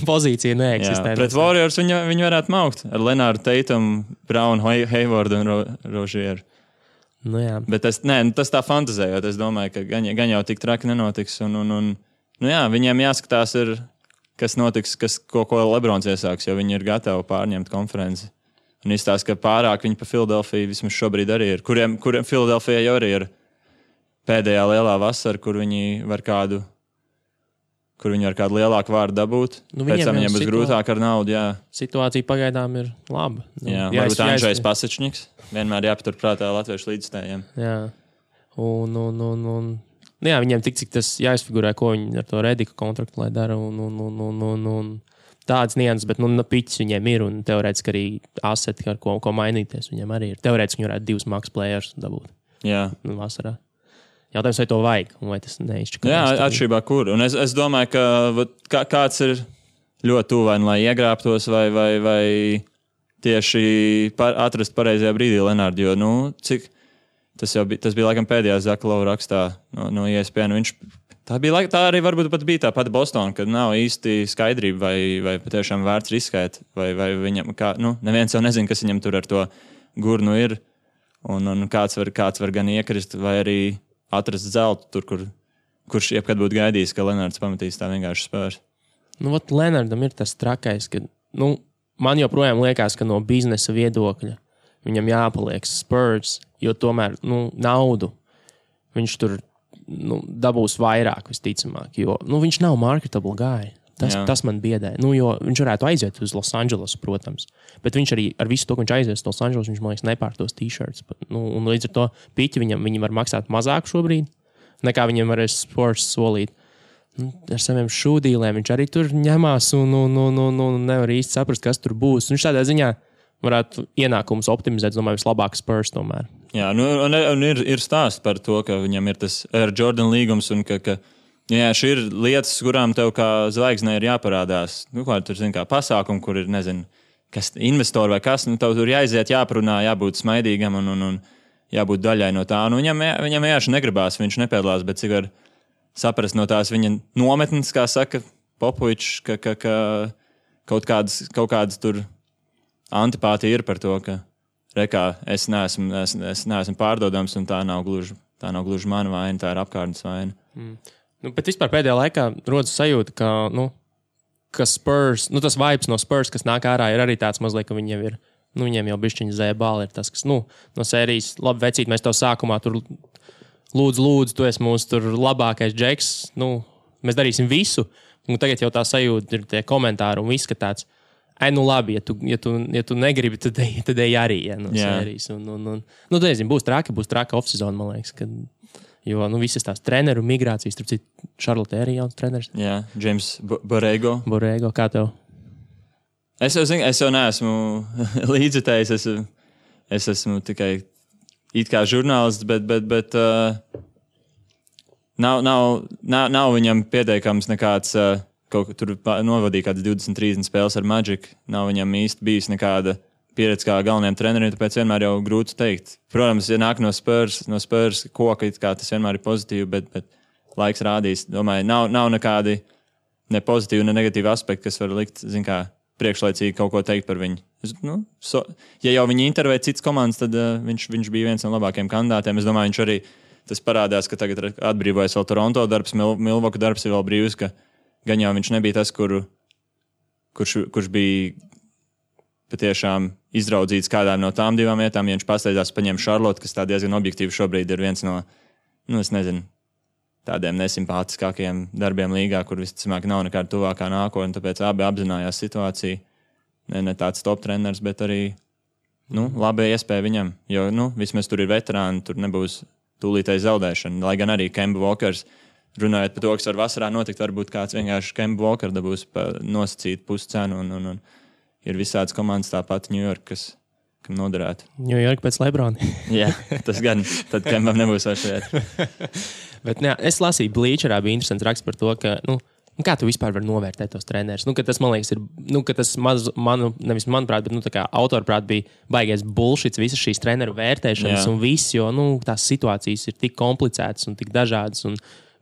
pozīcija neeksistē. Jā, pret Warriors viņi varētu maukt ar Lenāru Tatum, Brown, Haywardu un Rozieru. Nu jā. Bet tas tā fantazējot, es domāju, ka gan jau tik traki nenotiks, un jā, viņiem jāskatās ir, kas notiks, ko Lebrons iesāks, jo viņi ir gatavi pārņemt konferenci. Un izstāsta, ka pārāk viņi pa Filadelfiju vismaz šobrīd arī ir. Kuriem Filadelfijai jau arī ir pēdējā lielā vasara, kur viņi var kādu lielāku vārdu dabūt. Pēc tam viņiem būs grūtāk ar naudu, jā. Situācija pagaidām ir laba. Jā, varbūt Andžejs Pasečņiks. Vienmēr jāpaturprātā latviešu līdzstājiem. Jā. Un jā, viņiem tik cik tas jāizfigurē, ko viņi ar to Redika kontraktu lai dara un tādas nianses, bet piķis viņiem ir un teorētiski arī aseti, ar ko mainīties viņiem arī ir. Teorētiski viņi varētu 2 max players dabūt. Jā. Vasarā. Jautājums, vai to vajag, vai tas neizšķirās. Jā, atšķirībā kur. Un es domāju, ka kāds ir ļoti tuvu, vai iegrābtos, vai tieši atrast pareizajā brīdī Lenārdu, jo, cik tas bija laikam pēdējā Zaka Lova rakstā no ESPN. Tā arī varbūt pat bija tā pati Bostona, kad nav īsti skaidrība, vai patiešām vērts riskēt, vai viņam, neviens jau nezina, kas viņam tur ar to gurnu ir, un kāds var gan iekrist, vai arī atrast zeltu tur, kurš jebkad būtu gaidījis, ka Lenārds pamatīs tā vienkārši spērs. Lenārdam ir tas trakais, ka, man joprojām liekas, ka no biznesa viedokļa viņam jāpaliek Spurs, jo tomēr, naudu viņš tur dabūs vairāk, visticamāk, jo viņš nav marketable guy. Tas man biedē. Jo viņš varētu aiziet uz Los Angeles, protams, bet viņš arī ar visu to, ka viņš aizies uz Los Angeles, viņš, man liekas, nepārtos t-shirts. Un līdz ar to piķi viņi var maksāt mazāk šobrīd, nekā viņiem varēs Spurs solīt. Ar saviem šūdīlēm viņš arī tur ņemās un nevar īsti saprast, kas tur būs. Viņš tādā ziņā varētu ienākumus optimizēt, domāju, vislabāk Spurs tomēr. Jā, un ir stāsts par to, ka viņam ir tas Air Jordan līgums un ka šī ir lietas, kurām tev kā zvaigznei ir jāparādās. Tur kā pasākumi, kur ir, nezinu, kas investori vai kas, tev tur jāiziet, jāparunā, jābūt smaidīgam un jābūt daļai no tā. Viņam vienkārši negribās, viņš nepiedalās, bet cik var saprast no tās viņa nometnes, kā saka Popovičs, ka kaut kādas tur antipātija ir par to, ka es neesmu pārdodams, un tā nav gluži mana vaina, tā ir apkārtnes vaina. Bet vispār pēdējā laikā rodas sajūta, ka Spurs, tas vibes no Spurs, kas nāk ārā, ir arī tāds mazliet, ka viņiem ir, viņiem jau bišķiņa zēbāli ir tas, kas, no sērijas, labi vecīt, mēs tev sākumā tur lūdzu, tu esi mūsu tur labākais džeks, mēs darīsim visu, un tagad jau tā sajūta ir tie komentāri un viss, ka tāds, labi, ja tu negribi, tad ej arī, no sērijas. Nezinu, būs traka off-season, man liekas, jo visas tās treneru migrācijas, tur citu Charlotte arī jauns treneris. Jā, James Borrego. Borrego, kā tev? Es jau neesmu līdzjutējis, es esmu tikai it kā žurnālists, bet nav viņam pieteikams nekāds... Tur novadīja kādas 20-30 spēles ar Magic. Nav viņam īsti bijis nekāda pieredze kā galvenajam trenerim, tāpēc vienmēr jau grūti teikt. Protams, ja nāk no Spurs koka, kā tas vienmēr ir pozitīvi, bet laiks rādīs. Domāju, nav nekādi ne pozitīvi, ne negatīvi aspekti, kas var likt, priekšlaicīgi kaut ko teikt par viņu. Ja jau viņi intervē citas komandas, tad viņš bija viens no labākajiem kandidātiem. Es domāju, viņš arī tas parādās, ka tagad atbrīvojas vēl Toronto darbs, Milwaukee darbs ir vēl brīvs, ka gan jau viņš nebija tas, kurš bija patiešām izraudzīts kādām no tām divām vietām. Ja viņš pasteidzās paņem Charlotte, kas tā diezgan objektīvi šobrīd ir viens no, es nezinu, tādiem nesimpātiskākajiem darbiem līgā, kur visticamāk nav nekāda tuvākā nākotne, tāpēc abi apzinājās situāciju. Ne tāds top treneris, bet arī labi iespēja viņam, jo vismaz tur ir veterāni, tur nebūs tūlītēji zaudēšana. Lai gan arī Kemba Walkers runājot par to, kas var vasarā notikt, varbūt kāds vienkārši Kemba Walker dabūs nosacīt puscenu un ir visādas komandas tāpat New York, kam noderētu. New York pēc Lebrona. Jā, tas gan, tad Kembam nebūs vairs vieta. Bet es lasīju Bleacherā, bija interesants raksts par to, ka, kā tu vispār vari novērtēt tos trenerus? Ka tas, man liekas, ir, ka tas nevis manuprāt, bet, kā autorprāt bija baigais bullshits visas šīs treneru vērtēšanas un viss, jo, tās situācijas ir tik komplicētas un tik dažādas un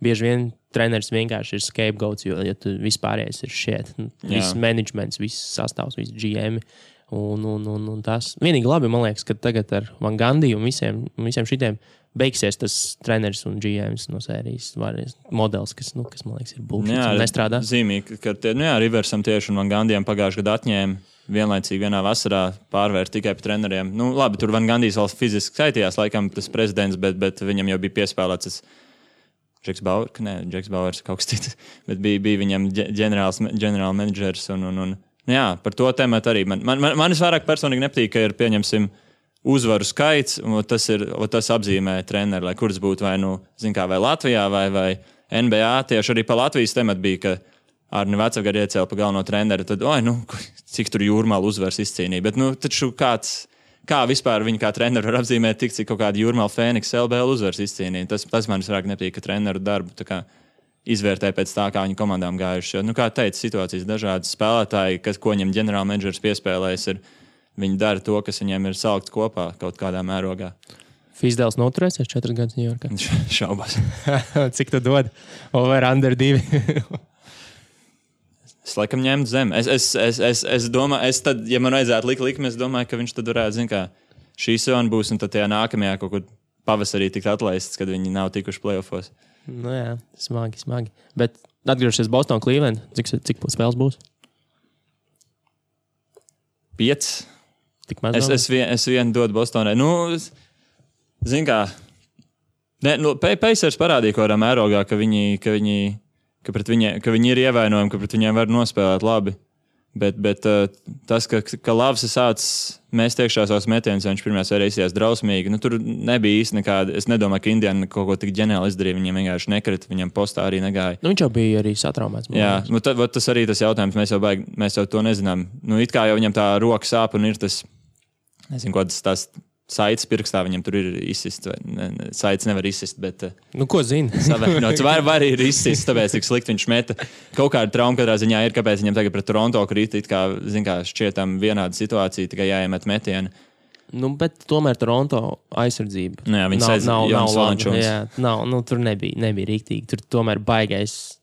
bieži vien treneris vienkārši ir scapegoats, jo tu vispārējais ir shit. Viss managements, viss sastāvs, viss GM un tas. Vienīgi labi, man liekas, ka tagad ar Van Gundy un visiem šitiem beigsies tas treneris un GMs no sērijas modelis, kas man liekas, ir bullshit un nestrādā. Zīmīgi, ka Riversam tieši un Van Gundijam pagājušajā gadā atņēma vienlaicīgi vienā vasarā pārvērt tikai par treneriem. Labi, tur Van Gundijs vēl fiziski skaitījās, laikam tas prezidents, bet viņam jau bija piespēlēts tas Džeks Bauers kaut kas cits, bet bija viņam ģenerāla menedžers un par to tematu arī. Man visvairāk personīgi nepatīk, ka ir, pieņemsim, uzvaru skaits, un tas apzīmē treneri, lai kuras būtu vai Latvijā vai NBA. Tieši arī pa Latvijas tematu bija, ka Arni Vecavgari iecēla pa galveno treneri, tad, cik tur Jūrmāla uzvaras izcīnīja. Bet, taču kā vispār viņi kā treneri var apzīmēt tik, cik kaut kāda Jūrmāla Fēniks LBL uzvaras izcīnīja. Tas man visvairāk nepatīk, ka treneru darbu tā kā izvērtē pēc tā, kā viņu komandām gājuši. Kā teica, situācijas dažādas spēlētāji, ko viņam ģenerāla menedžers piespēlējas, viņi dara to, kas viņiem ir salikts kopā kaut kādā mērogā. Fizdēls noturēsies 4 gadus New Yorkā? Šaubās. Cik tu dod? Over under 2? Es laikam ņemtu zem. Es domāju, tad, ja man vajadzētu likt likmi, es domāju, ka viņš tad varētu, šī sezona būs, un tad tajā nākamajā kaut kur pavasarī tikt atlaists, kad viņi nav tikuši playoffos. Jā, smagi. Bet atgriežoties Boston, Cleveland, cik spēles būs? 5. Tik maz es vienu dodu Bostonai. Pacers parādīja kaut kādā mērogā, ka viņi ir ievainojumi, ka pret viņiem var nospēlēt labi. Bet tas, ka Lavs ir sācis mest iekšā savus metienus, viņš pirmajā sērijā izsījās drausmīgi. Tur nebija īsti nekāda. Es nedomāju, ka Indiana kaut ko tik ģeniāli izdarīja. Viņiem vienkārši nekrita, viņam postā arī negāja. Viņš jau bija arī satraumēts. Jā, tas arī tas jautājums. Mēs jau to nezinām. It kā jau viņam tā roka sāp un ir tas, nezinu, ko tas saites pirkstā viņam tur ir izsist. Saites nevar izsist, bet... ko zini? Savēnots. Var ir izsist, tāpēc, cik slikti viņš meta. Kaut kāda trauma katrā ziņā ir, kāpēc viņam tagad pret Toronto krīt, kā šķietam vienāda situācija, tikai jāiemet metieni. Bet tomēr Toronto aizsardzība. Viņi sēdz Jonas Valančuns. Jā, tur nebija rīktīgi. Tur tomēr baigais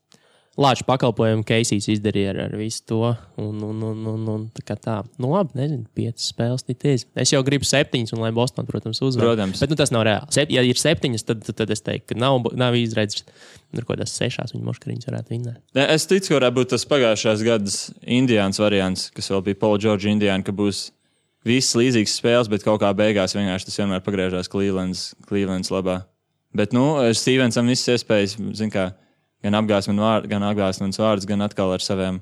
lāču pakalpojumu Keisijs izdarīja ar visu to. Un tā. Labi, nezinu, 5 spēles tities. Es jau gribu 7, un lai Boston, protams, uzvar. Protams. Bet tas nav reāli. Ja ir 7, tad es teiktu, ka nav izredzes. Tur kaut kādās 6 viņa moškariņas varētu vinnēt. Es ticu, ka varētu būt tas pagājušās gadas Indiāns variants, kas vēl bija Paul George Indiāna, ka būs viss līdzīgs spēles, bet kaut kā beigās vienkārši tas vienmēr pagriežās Clevelands labā. Bet, Stevensam visas iespējas, gan apgāzmens vārds, gan atkal ar saviem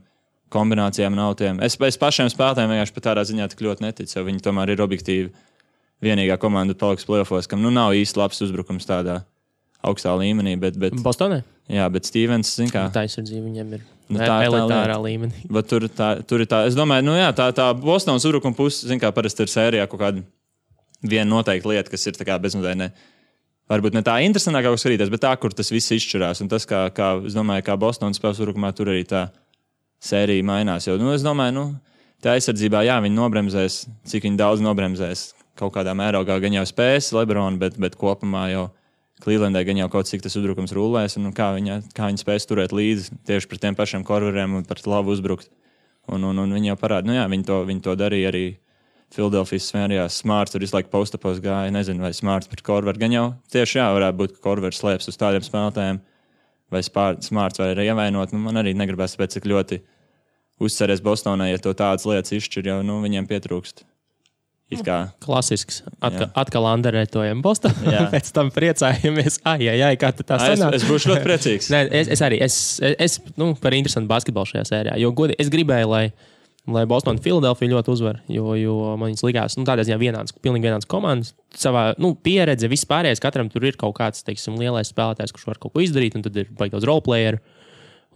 kombinācijām un autiem. Es pašiem spēlētājiem vienkārši pat tādā ziņā tik ļoti neticu, jo viņi tomēr ir objektīvi vienīgā komanda paliks playoffos, kam nav īsti labs uzbrukums tādā augstā līmenī. Bet Bostonē? Jā, bet Stevens, Tā aizsardzība viņam ir elitārā līmenī. Bet tur ir tā, es domāju, tā Bostonas uzbrukuma puse, parasti ir sērijā kaut kāda viena noteikta lieta, kas ir tā kā bezmazliet varbūt ne tā interesantākā, kā skatīties, bet tā, kur tas viss izšķirās. Un tas, es domāju, kā Bostonas spēles uzbrukumā, tur arī tā sērija mainās. Jo, es domāju, tā aizsardzībā, viņi nobremzēs, cik viņi daudz nobremzēs. Kaut kādā mērogā gan jau spēs Lebrona, bet kopumā jau Clevelandai gan jau kaut cik tas uzbrukums rullēs, un kā viņi spēs turēt līdzi tieši pret tiem pašiem korveriem un par labu uzbrukt. Un viņi jau parāda, viņi to darīja arī Filadelfijas svērijās. Smarts tur visu laiku postapos gāja. Nezinu, vai Smarts pret Korveru gan jau tieši varētu būt, ka Korveru slēps uz tādiem spēlētājiem. Vai Smarts var arī ievainot. Man arī negribas pēc cik ļoti uzceries Bostonai, ja to tādas lietas izšķir, jo viņiem pietrūkst. Klasisks. Atkal anderētojam Bostonā. Pēc tam priecājamies. Kā tā sanāk? Es būšu ļoti priecīgs. Nē, es arī. Es par interesantu basketbolu šajā sērijā. Jo, godīgi, es gribēju, lai lai Boston un Philadelphia ļoti uzvar, jo man viņas likās, tādā ziņā pilnīgi vienāds komandas. Savā, pieredze, viss pārējais, katram tur ir kaut kāds, teiksim, lielais spēlētājs, kurš var kaut ko izdarīt, un tad ir baigi daudz roleplayeru.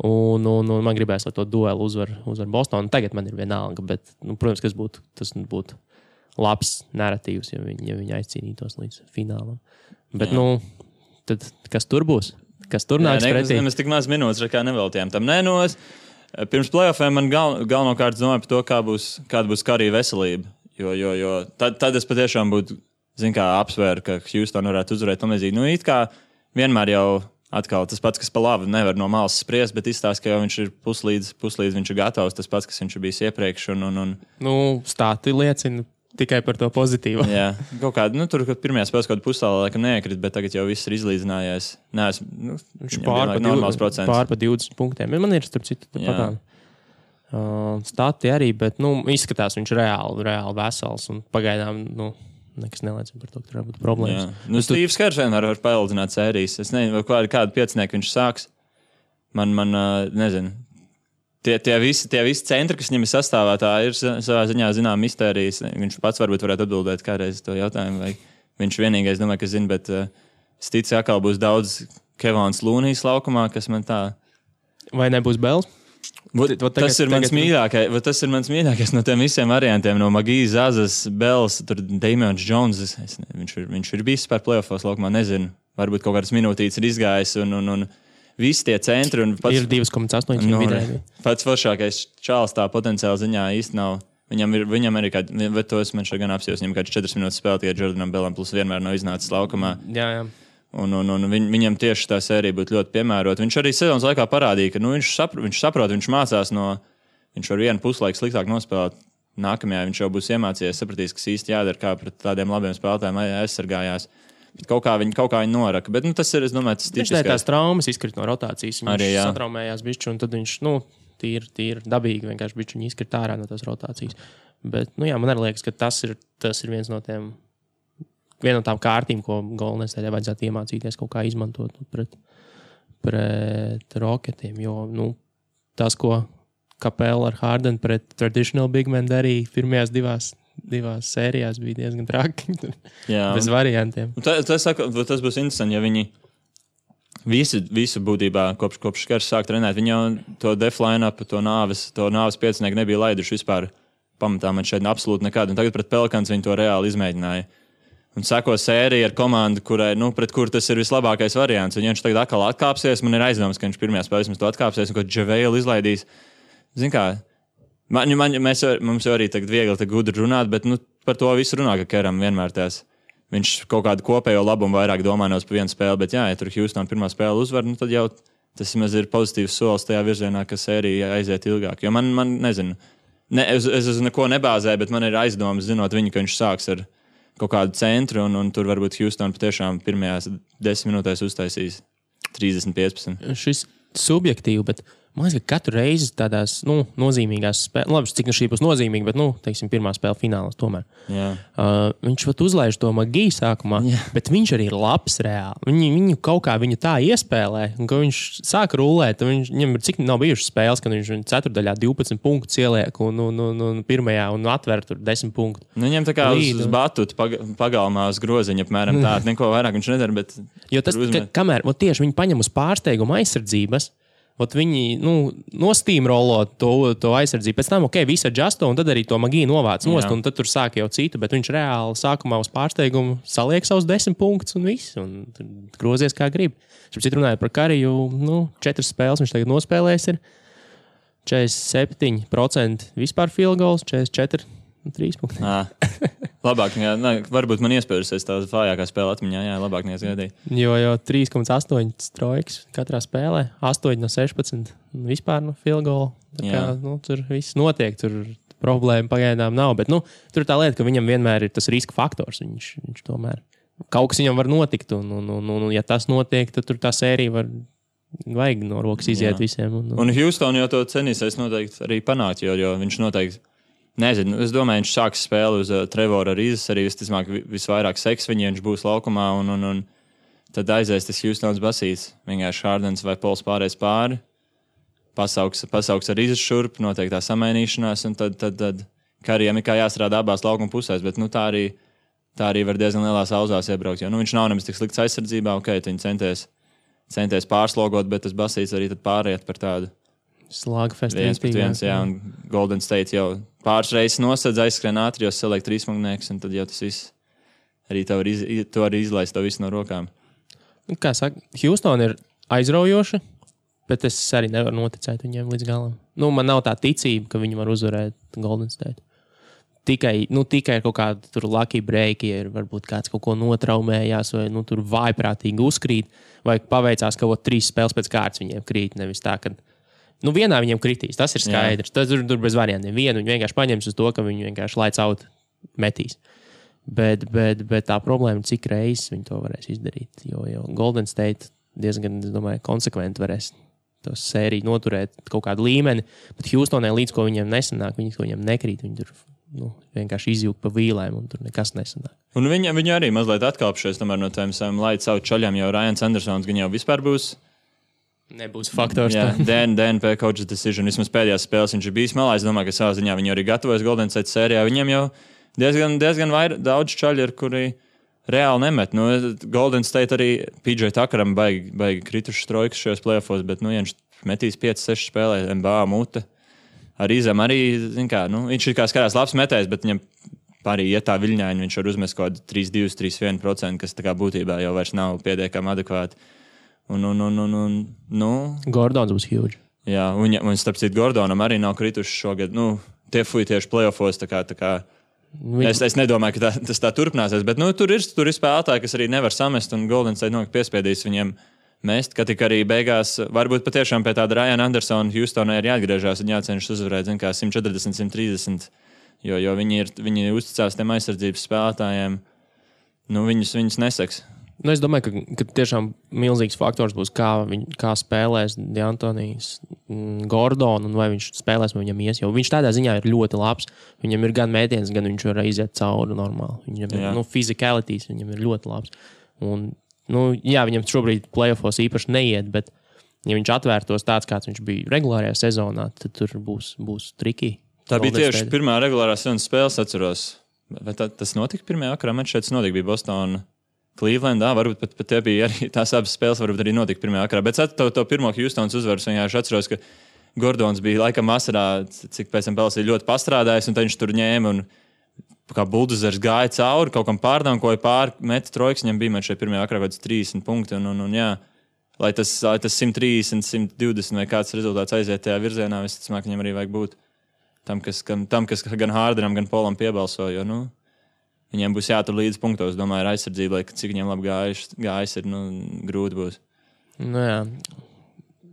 Un man gribēs, lai to duelu uzvar Boston. Tagad man ir vienalga, bet, protams, tas būtu labs narratīvs, ja viņi aizcīnītos līdz finālam. Bet, tad kas tur būs? Kas tur nāks pretī? Mēs tik maz minūtes kā neveltījām tam. Pirms playoffiem man galvenokārt domāju par to, kāda būs Karija veselība. Jo tad es patiešām būtu, apsvēru, ka Houston varētu uzvarēt tamlīdzīgi. It kā vienmēr jau atkal tas pats, kas pa labi nevar no malas spriest, bet izstāst, ka jau viņš ir puslīdz viņš ir gatavs, tas pats, kas viņš ir bijis iepriekš. Stāti liecina tikai par to pozitīvu. Jā, kaut kāda, tur pirmajā spēlē kaut kāda pusstāvā laikam neiekrita, bet tagad jau viss ir izlīdzinājies. Viņš pār pa 20 punktiem. Man ir, starp citu, patām stāti arī, bet, izskatās viņš reāli vesels un pagaidām, nekas neliecina par to, ka tur var būt problēmas. Stīvs Kers vienmēr var paildzināt sērijas. Es nezinu, kādu piecinieku viņš sāks. Man nezinu. Tie visi centri, kas viņam ir sastāvā, tā ir savā ziņā zinām mistērijas. Viņš pats varbūt varētu atbildēt kādreiz to jautājumu, vai viņš vienīgais, domāju, ka zina, bet es ticu, atkal būs daudz Kevons Lūnijas laukumā, kas man tā... Vai nebūs Bels? Tas ir mans mīļākais no tiem visiem variantiem, no Magijas, Zazas, Bels, tur Damians Jones. Viņš ir bijis par playoffos laukumā, nezinu. Varbūt kaut kādas minūtītes ir izgājis un visi tie centri un ir 2,8 vidēji. Pats foršākais čāls tā potenciāli ziņā īsti nav. Viņam arī kāda, bet tos man šeit gan apsījos, viņam kāds 4 minūtes spēlē tikai Jordanam Bellam, plus vienmēr nav iznācis laukumā. Jā. Un viņam tieši tā sērija būtu ļoti piemērota. Viņš arī sezonas laikā parādīja, ka viņš saprot, viņš mācās viņš var vienu puslaiku sliktāk nospēlēt. Nākamajā viņš jau būs iemācījies, sapratīs, kas īsti jādara, kā pret tādiem labiem spēlētājiem aizsargājās. Bet kaut kā viņi noraka. Bet tas ir, es domāju, tas tipiskais. Viņš tās traumas izkrita no rotācijas. Viņš satraumējās bišķi, un tad viņš, tīri dabīgi vienkārši bišķi viņi izkrita ārā no tās rotācijas. Bet, man arī liekas, ka tas ir viena no tām kārtīm, ko Golden State vajadzētu iemācīties kaut kā izmantot pret Rocketiem. Jo, tas, ko Capela ar Harden pret traditional big men darīja pirmajās divās sērijās, bija diezgan traki. Bez variantiem. Tas būs interesanti, ja viņi visu būtībā kopš Kers sāk trenēt. Viņi jau to def line-up, to nāves piecinieku nebija laiduši vispār pamatā man šeit absolūti nekādu. Un tagad pret Pelicans viņi to reāli izmēģināja. Un sako sērija ar komandu, pret kuru tas ir vislabākais variants. Un ja viņš tagad atkal atkāpsies, man ir aizdoms, ka viņš pirmajā spēlē to atkāpsies un ko Džavēlu izlaidīs. Zini kā, mums jau arī tagad viegli gudri runāt, bet par to visu runā, ka Keram vienmēr viņš kaut kādu kopējo labumu vairāk domā nevis par vienu spēli, bet ja tur Houston pirmā spēle uzvar, tad jau tas ir pozitīvs solis tajā virzienā, ka sērija aiziet ilgāk. Jo man nezinu, es uz neko nebāzēju, bet man ir aizdomas, zinot viņu, ka viņš sāks ar kaut kādu centru, un tur varbūt Houston patiešām pirmajās 10 minūtēs uztaisīs 30-15. Šis subjektīvi, bet man liekas, ka katru reizi tādās nozīmīgās spēlēs, labi, cik šī būs nozīmīga, bet, teiksim, pirmā spēle finālās tomēr. Viņš pat uzlaiž to Magiju sākumā, bet viņš arī ir labs reāli. Viņu kaut kā tā iespēlē, un ka viņš sāk rulēt, viņam ir cik nav bijušas spēles, kad viņš ceturdaļā 12 punktus ieliek un pirmajā un atver tur 10 punktu. Viņam tā kā uz batutu pagalmā uz groziņa, apmēram tā, neko vairāk viņš nedara, bet... Jo tas, kamēr tieši viņi paņem uz pārsteigumu aizsardzības, viņi nostīmrolo to aizsardzību. Pēc tam, viss adjusto, un tad arī to Magiju novāc nost, un tad tur sāk jau citu, bet viņš reāli sākumā uz pārsteigumu saliek savus 10 punktus un viss, un grozies kā grib. Šeit runājot par Kariju, 4 spēles viņš tagad nospēlējis ir 47% vispār field goals, 44 3 punkti. Labāk, varbūt man iespējusies tā vājākā spēle atmiņā, labāk neizgaidīja. Jo 3,8 trojkas katrā spēlē, 8 no 16 vispār no field goal. Tā kā, tur viss notiek, tur problēma pagaidām nav, bet tur ir tā lieta, ka viņam vienmēr ir tas riska faktors. Viņš tomēr kaut kas viņam var notikt, un ja tas notiek, tad tur tā sērija vajag no rokas iziet visiem. Un Houston jau to cenīsies noteikti arī panākt, jo viņš noteikti nezinu, es domāju, viņš sāks spēli uz Trevora Rīzes, arī visvairāk seks viņiem, viņš būs laukumā, un tad aizies tas Houstons basīts, vienkārši Hardens vai Pols pārējais pāri. pasauks ar izšurp, noteiktā samainīšanās, un tad Karijam ir kā jāstrādā abās laukuma pusēs, bet tā arī var diezgan lielās auzās iebraukt, jo viņš nav nemaz tik slikts aizsardzībā, viņi centies pārslogot, bet tas basīts arī tad pāriet par tādu slāgfestu. 1-1, jā, un Golden State jau pāris reizes nosedz, aizskrien ātri, jo saliek trīsmagnēks, un tad jau tas viss arī to var izlaist to visu no rokām. Kā saka, Houston ir aizraujoša, bet es arī nevaru noticēt viņiem līdz galam. Man nav tā ticība, ka viņi var uzvarēt Golden State. Tikai ir kaut kāda tur lucky break, ja ir varbūt kāds kaut ko notraumējās, vai tur vājprātīgi uzkrīt, vai paveicās, ka 3 spēles pēc kārtas viņiem krīt, nevis tā, ka vienā viņiem kritīs, tas ir skaidrs. Tas tur bez variantiem. Vienu viņi vienkārši paņems uz to, ka viņi vienkārši lights out metīs. Bet tā problēma ir, cik reizes viņi to varēs izdarīt. Jo Golden State diezgan, es domāju, konsekventi varēs to sēriju noturēt kaut kādu līmeni, bet Houstonai līdz ko viņiem nesanāk, ko viņiem nekrīt, viņi tur vienkārši izjūg pa vīlēm un tur nekas nesanāk. Un viņi arī mazliet atkāpšies tomēr no tiem saviem lights out čaļiem, jo Ryans Andersons gan jau vispār nebūs faktors. Jā, DNP coach's decision. Vismaz pēdējās spēles viņš ir bijis malā. Es domāju, ka savā ziņā viņi arī gatavojas Golden State sērijā. Viņiem jau diezgan daudz čaļi ir, kuri reāli nemet. Golden State arī PJ Tuckeram baigi kritušas trojkas šajos playoffos, bet viņš metīs 5-6 spēlē, NBA mute. Arī zem arī, viņš ir kā skatās labs metējs, bet viņam arī iet tā viļņaini, viņš var uzmest kaut kādu 3-2, 3-1%, kas tā kā būtībā jau vairs nav pietiekami adekvāti. Gordons būs huge. Jā, un starp citu Gordonam arī nav krituši šogad. Tie fuji tieši playoffos. Es nedomāju, ka tas tā turpināsies, bet tur ir spēlētāji, kas arī nevar samest, un Golden State piespiedīs viņiem mest, ka tik arī beigās varbūt patiešām pie tāda Ryana Andersona Houstonai ir jāatgriežās un jācenšas uzvarēt, 140, 130, jo viņi uzticās tiem aizsardzības spēlētājiem. Viņus neseks. Es domāju, ka tiešām milzīgs faktors būs, kā spēlēs D'Antonijs Gordon, un vai viņš spēlēs, vai viņam ies. Jo viņš tādā ziņā ir ļoti labs. Viņam ir gan mētiens, gan viņš var iziet cauri normāli. Viņam ir physicalities, viņam ir ļoti labs. Un, viņam šobrīd playoffos īpaši neiet, bet ja viņš atvērtos tāds, kāds viņš bija regulārajā sezonā, tad tur būs triki. Tā bija tieši pirmā regulārā sezonas spēles, atceros. Vai tas notika pirmajā vakarā? Man šeit notika, bija Boston. Clevelandā, varbūt pat tie bija arī tās abas spēles, varbūt arī notika pirmajā vakarā. Bet to pirmo Houstons uzvaras vienkārši atceros, ka Gordons bija laikam vasarā, cik pēc tam Pelis ir ļoti pastrādājis, un tad viņš tur ņēma un kā buldozers gāja cauri, kaut kam pārdankoja pāri, meta trojkas, viņam bija šeit pirmajā vakarā kaut kāds 30 punkti, un jā, lai tas 130, 120 vai kāds rezultāts aiziet tajā virzienā, es domāju, ka viņam arī vajag būt tam, kas gan Hardenam, gan Polam piebalso, jo, viņiem būs jātur līdz punktos, domāju, ar aizsardzību, lai cik viņiem labi gājis ir, grūti būs.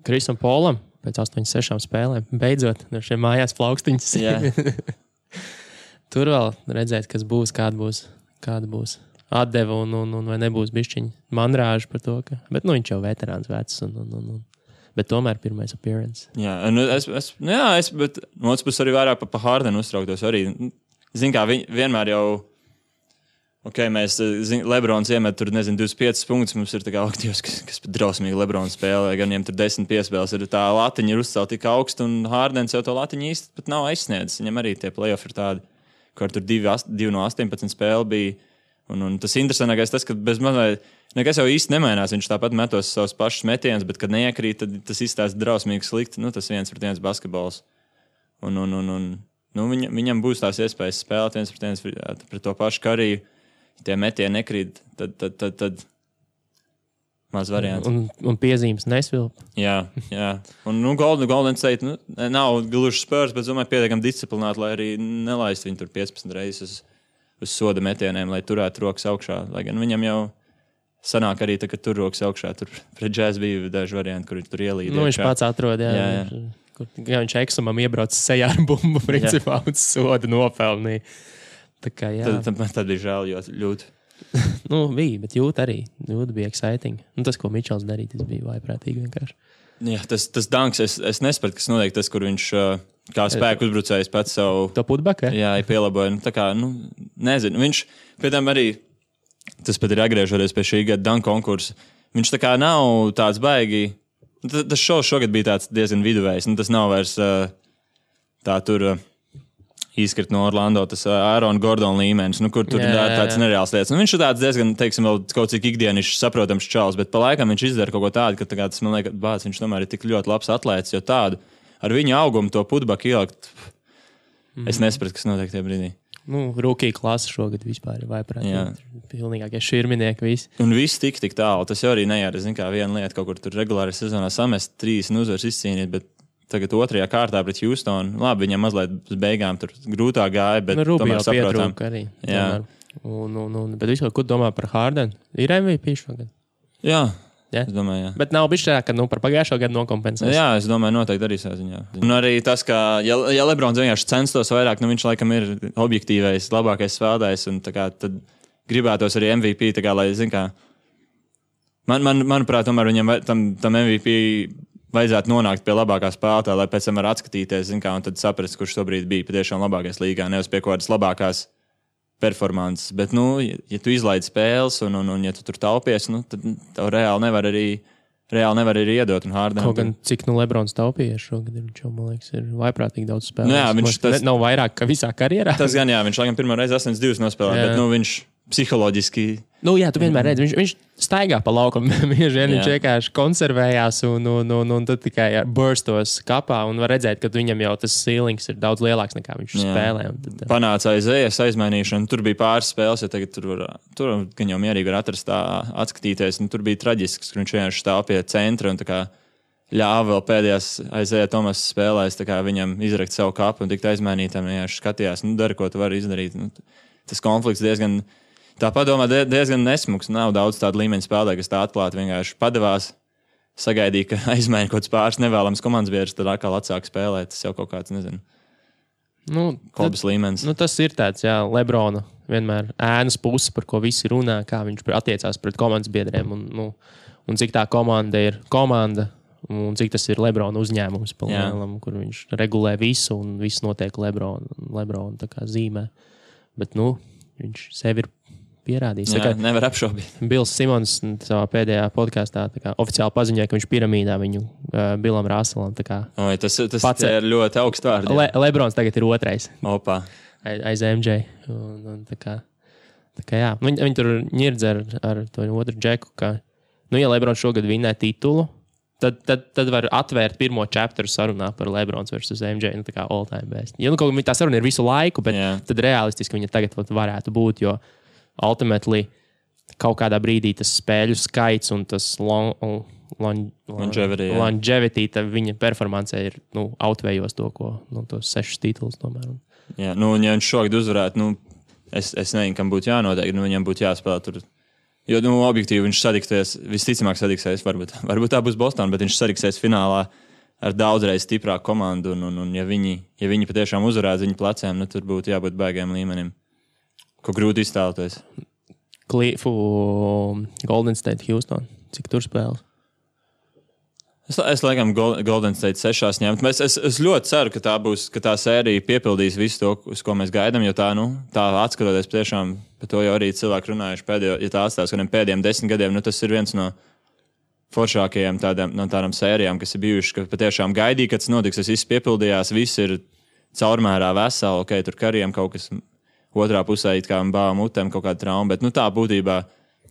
Krisam Polam pēc 8-6 spēlēm beidzot ar šiem mājās plaukstiņas. Tur vēl redzēt, kas būs, kāda būs atdeva un vai nebūs bišķiņi manrāži par to, ka... Bet viņš jau veterāns vecs bet tomēr pirmais appearance. Jā, bet no otras puses arī vairāk pa Hardenu uztrauktos arī. Zin kā, vienmēr jau mēs, Lebrons iemet tur, 25 punktus, mums ir tā kā aktīvs, kas pat drausmīgi Lebrons spēlē, gan viņiem tur 10 piespēles, ir tā latiņa ir uzcelt tik augstu, un Hardens jau to latiņu īsti pat nav aizsniedzis. Viņam arī tie playoff ir tādi, kur tur 2 no 18 spēle bija, un tas interesantākais tas, ka bez mazliet nekas jau īsti nemainās, viņš tāpat metos savus pašus metienus, bet kad neiekrīt, tad tas izstāsta drausmīgi slikti, tas 1-1 basketbols. Viņam būs tās iespējas spēlēt 1-1 pret to pašu Kariju. Tie metieni nekrīt, tad maz variants. Un piezīmes nesvilp. Jā. Un Golden State nav gluži Spurs, bet domāju pietiekami disciplināti, lai arī nelaist viņu tur 15 reizes uz soda metieniem, lai turētu rokas augšā. Lai gan viņam jau sanāk arī, ka tur rokas augšā. Tur pret Jazz bija daži varianti, kur tur ielīd. Viņš pats atrod, jā. Viņš Eksumam iebrauc sejā ar bumbu, principā, un soda nopelnīja. Tad bija žēl, jo ļoti. Bija, bet jūt arī. Jūt bija exciting. Tas, ko Mičels darīja, tas bija vaiprātīgi vienkārši. Jā, tas danks, es nespētu, kas notiek tas, kur viņš kā spēku uzbrucējs pats savu... To putback, Jā, pielaboja. Nezinu. Viņš, pēc tam arī, tas pat ir atgriežoties pie šī gada danku konkursa, viņš tā kā nav tāds baigi Tas šovs šogad bija tāds diezgan viduvējs. Tas nav vairs tā tur izkrit no Orlando, tas Aaron Gordon līmenis, kur tur ir tāds nereāls lietas. Viņš ir tāds diezgan, teiksim, vēl kaut cik ikdienišs saprotams čals, bet pa laikam viņš izdara kaut ko tādu, ka tas, man liekas, viņš tomēr ir tik ļoti labs atlēts, jo tādu ar viņa augumu to putbaku ielikt, es nesapratu, kas notiek tajā brīdī. Rookie klasa šogad vispār ir vaiprāt. Pilnīgākie širminieki visi. Un viss tik tālu. Tas jau arī nejāra, kā viena lieta, kaut kur tur regulāri sezonā samest 30 uzvaras izcīnīt, bet tagad otrajā kārtā pret Houstonu. Labi, viņam mazliet uz beigām tur grūtāk gāja, bet tomēr saprotam. Arī. Jā. Bet vispār, ko domā par Hardenu? Ir MVP šogad? Jā. Es domāju, jā. Bet nav bijis tā, ka par pagājušo gadu nokompensēs. Jā, es domāju, noteikti arī saziņā. Un arī tas, ka, ja Lebrons vienkārši censtos vairāk, viņš laikam ir objektīvais, labākais spēlētājs, un tad gribētos arī MVP, lai, manuprāt, tomēr viņam tam MVP vajadzētu nonākt pie labākā spēlētāja, lai pēc tam var atskatīties, un tad saprast, kurš tobrīd bija patiešām labākais līgā, nevis pie kaut kādas labākās performances, bet, ja tu izlaidi spēles un ja tu tur taupies, tad tev reāli nevar arī iedot. Kaut gan cik Lebrons taupījies šogad, viņš jau, man liekas, ir vaiprātīgi daudz spēlēs. Jā, viņš nav vairāk, ka visā karjerā. Tas gan, jā, viņš laikam pirmo reizi 8-2 nospēlē, bet, viņš psiholoģiski... Jā, tu vienmēr redzi, viņš staigā pa laukam, viņš vienkārši konservējās un tad tikai burstos kapā un var redzēt, ka viņam jau tas ceilings ir daudz lielāks nekā viņš spēlē. Panāca aizējas aizmainīšana, tur bija pāris spēles, ja tagad tur gan jau mierīgi var atrast tā atskatīties, un tur bija traģisks, ka viņš vienkārši stāv pie centra un tā kā ļāva vēl pēdējās aizēja Tomas spēlēs, tā kā viņam izrakt savu kapu un tikt aizmainītam, vienkārši skatījās, dari, ko tu vari izdarīt. Tas konflikts tā padomā diezgan nesmuks. Nav daudz tādu līmeņu spēlētāju, kas tā atklāti vienkārši padevās, sagaidīja, ka aizmaina kaut kāds pāris nevēlams komandas biedrs, tad atkal atsāk spēlēt. Tas jau kaut kāds, nezinu, hobis līmenis. Tas ir tāds, Lebrona vienmēr ēnas puse, par ko visi runā, kā viņš attiecās pret komandas biedriem un cik tā komanda ir komanda un cik tas ir Lebrona uzņēmums, kur viņš regulē visu un viss notiek Lebrona tā kā zīmē. Bet, viņš sevi ir pierādījis. Nevar apšaubīt. Bills Simons savā pēdējā podkāstā oficiāli paziņoja, ka viņš piramīdā viņu Billam Russellam. Tas ir ļoti augsts vārds. Lebrons tagad ir otrais. Opa. Aiz MJ. Jā. Viņi tur ņirdz ar to otru džeku, ka, ja Lebrons šogad vinnē titulu, tad var atvērt pirmo chapteru sarunā par Lebrons versus MJ, tā kā all time best. Kaut kā tā saruna ir visu laiku, bet tad realistiski viņa tagad varētu būt, jo ultimately kaut kādā brīdī tas spēļu skaits un tas longevity viņa performancē ir outvējos to, ko tos 6 titulus tomēr. Jā, ja viņš šogad uzvarētu, es nezinu, kam būtu jānotiek, viņam būtu jāspēlē tur. Jo, objektīvi viņš sadiksies, visticamāk sadiksies, varbūt tā būs Boston, bet viņš sadiksies finālā ar daudzreiz stiprāku komandu, un ja viņi patiešām uzvarētu viņu pleciem, tur būtu jābūt baigiem līmenim. Ko grūti iztēloties. Golden State, Houston. Cik tur spēles? Es laikam Golden State 6 ņemt. Es ļoti ceru, ka tā sērija piepildīs visu to, uz ko mēs gaidām, jo tā atskatoties tiešām, par to jau arī cilvēki runājuši pēdējo, ja tā atstās kādiem pēdējiem 10 gadiem, tas ir viens no foršākajiem tādām sērijām, kas ir bijuši, ka patiešām gaidīja, kad tas notiks, tas viss piepildījās, viss ir caurmērā veseli, ok, tur kariem kaut kas otrā pusē it kā bāva mutēm kaut kāda trauma, bet tā būtībā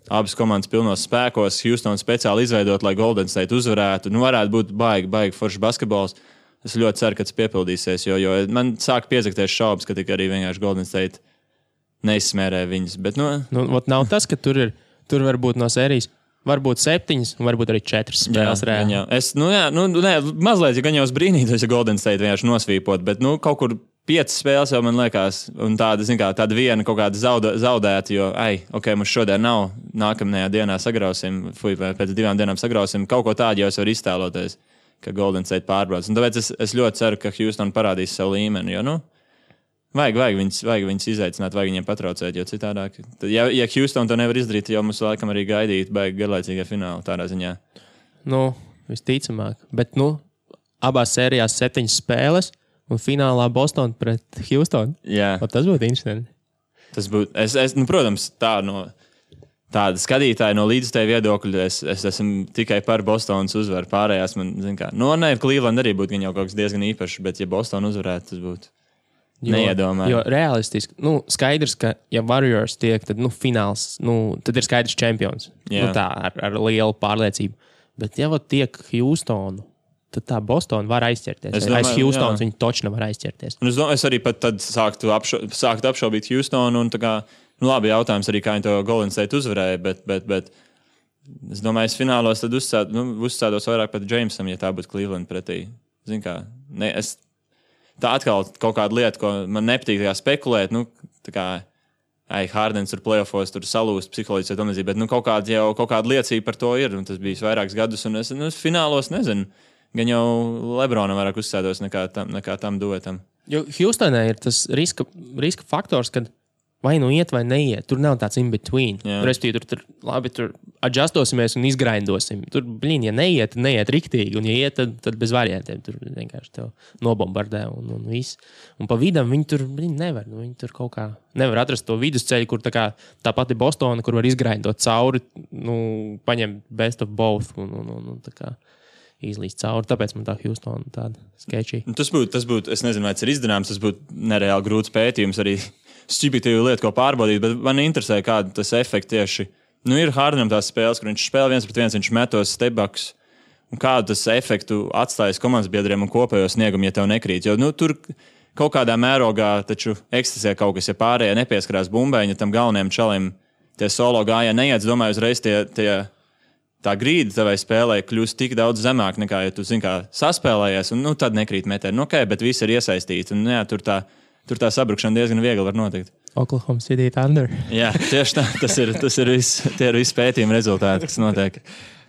abas komandas pilnos spēkos, Houston speciāli izveidot, lai Golden State uzvarētu, varētu būt baigi foršs basketbols. Es ļoti ceru, ka tas piepildīsies, jo man sāk piezakties šaubas, ka tik arī vienkārši Golden State neizsmērē viņas, bet nav tas, ka tur var būt no sērijas, varbūt 7, varbūt arī 4 spēles reāli. Mazliet, ja gan jau es brīnītos, ja Golden State vienkārši nosvīpot, bet kaut kur 5 spēles jau man liekas, un tāda viena kaut kāda zaudēta, jo, mums šodien nav, nākamajā dienā sagrausim, pēc 2 dienām sagrausim, kaut ko tādu jau es varu iztēloties, ka Golden State pārbrauc. Un tāpēc es ļoti ceru, ka Houston parādīs savu līmeni, jo, vajag viņus izaicināt, vajag viņiem patraucēt, jo citādāk. Ja Houston to nevar izdarīt, tad jau mums laikam arī gaidīt baigi garlaicīgā fināla tādā ziņā. Visticamāk. Bet, abās sērijās 7 spēles, un finālā Boston pret Houston. Jā. Tas būtu interesanti. Tas būtu, protams, tāda skatītāja no līdzstēja viedokļa. Es esmu tikai par Bostonas uzvaru. Pārējās man, Cleveland arī būtu jau kaut kas diezgan īpašs, bet ja Bostona uzvarētu, tas būtu neiedomājami. Jo realistiski, skaidrs, ka ja Warriors tiek, tad, fināls, tad ir skaidrs čempions. Tā, ar lielu pārliecību. Bet ja tiek Houstonu, tad tā Bostona var aizķerties. Aiz Houstonas viņi točni var aizķerties. Un es arī pat tad sāktu apšaubīt Houstonu. Un tā kā, labi, jautājums arī, kā viņi to Golden State uzvarēja, bet es domāju, es finālos tad uzstādos vairāk pat Jamesam, ja tā būtu Cleveland pretī. Zin kā, tā atkal kaut kāda lieta, ko man nepatīk spekulēt, tā kā Hardens tur playoffos tur salūst psiholoģiski, bet kaut kāda liecība par to ir, un tas bija vairākus gadus, un es finālos nezinu. Gan jau Lebronam vairāk uzsēdos nekā tam duetam. Jo Houstonā ir tas riska faktors, kad vai iet vai neiet. Tur nav tāds in between. Respektīvi, tur adjustosimies un izgrindosim. Tur, ja neiet riktīgi, un ja iet, tad bez variantiem. Tur vienkārši tev nobombardē un viss. Un pa vidam viņi tur nevar. Viņi tur kaut kā nevar atrast to vidusceļu, kur tā pati Bostona, kur var izgrindot cauri, paņem best of both un tā kā izlīst cauri. Tāpēc man tā Houstona tāda sketchy. Tas būtu, es nezinu, vai tas ir izdarāms, tas būtu nereāli grūts pētījums, arī stupidīva lieta, ko pārbaudīt, bet man interesē, kāda tas efekts tieši. Ir Hardenam tās spēles, kur viņš spēlē 1-1, viņš metos stepbacks, un kādu tas efektu atstājas komandas biedriem un kopējo sniegumu, ja tev nekrīt. Jo tur kaut kādā mērogā taču eksistē kaut kas, ja pārējie nepieskarās bumbēņa tam galvenajam čalim, tie solo gājā neiet, domāju, uzreiz tā grīda tavai spēlē kļūst tik daudz zemāk nekā, ja tu saspēlējies, un tad nekrīt metieni. Bet visi ir iesaistīti, un tur tā sabrukšana diezgan viegli var notikt. Oklahoma City Thunder. Jā, tieši tā. Tas ir viss, tie ir visi pētījumi rezultāti, kas notiek.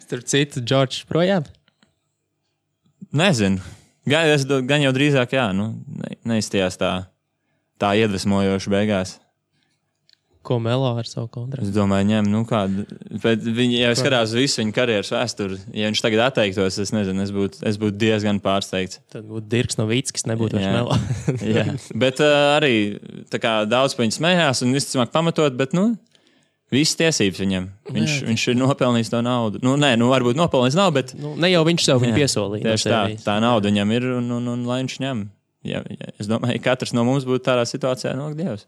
Tur citu Džordžs projām? Nezinu. Gan jau drīzāk, neizstījās tā iedvesmojoši beigās. Ko Melo ar savu kontraktu? Es domāju, ņem, kādu. Bet viņi jau skatās visu viņa karjeras vēsturi. Ja viņš tagad atteiktos, es nezinu, es būtu diezgan pārsteigts. Tad būtu Dirks Nowitzkis, nebūtu vairs Melo. Jā, bet arī tā kā daudz pa viņu smējās un visticamāk pamatot, bet, visas tiesības viņam. Viņš ir nopelnījis to naudu. Varbūt nopelnījis nav, bet... Ne jau viņš sev viņu piesolīja. Tieši tā nauda viņam ir un lai viņš ņem. Ja, es domāju, katrs no mums būtu tādā situācijā, Dievs.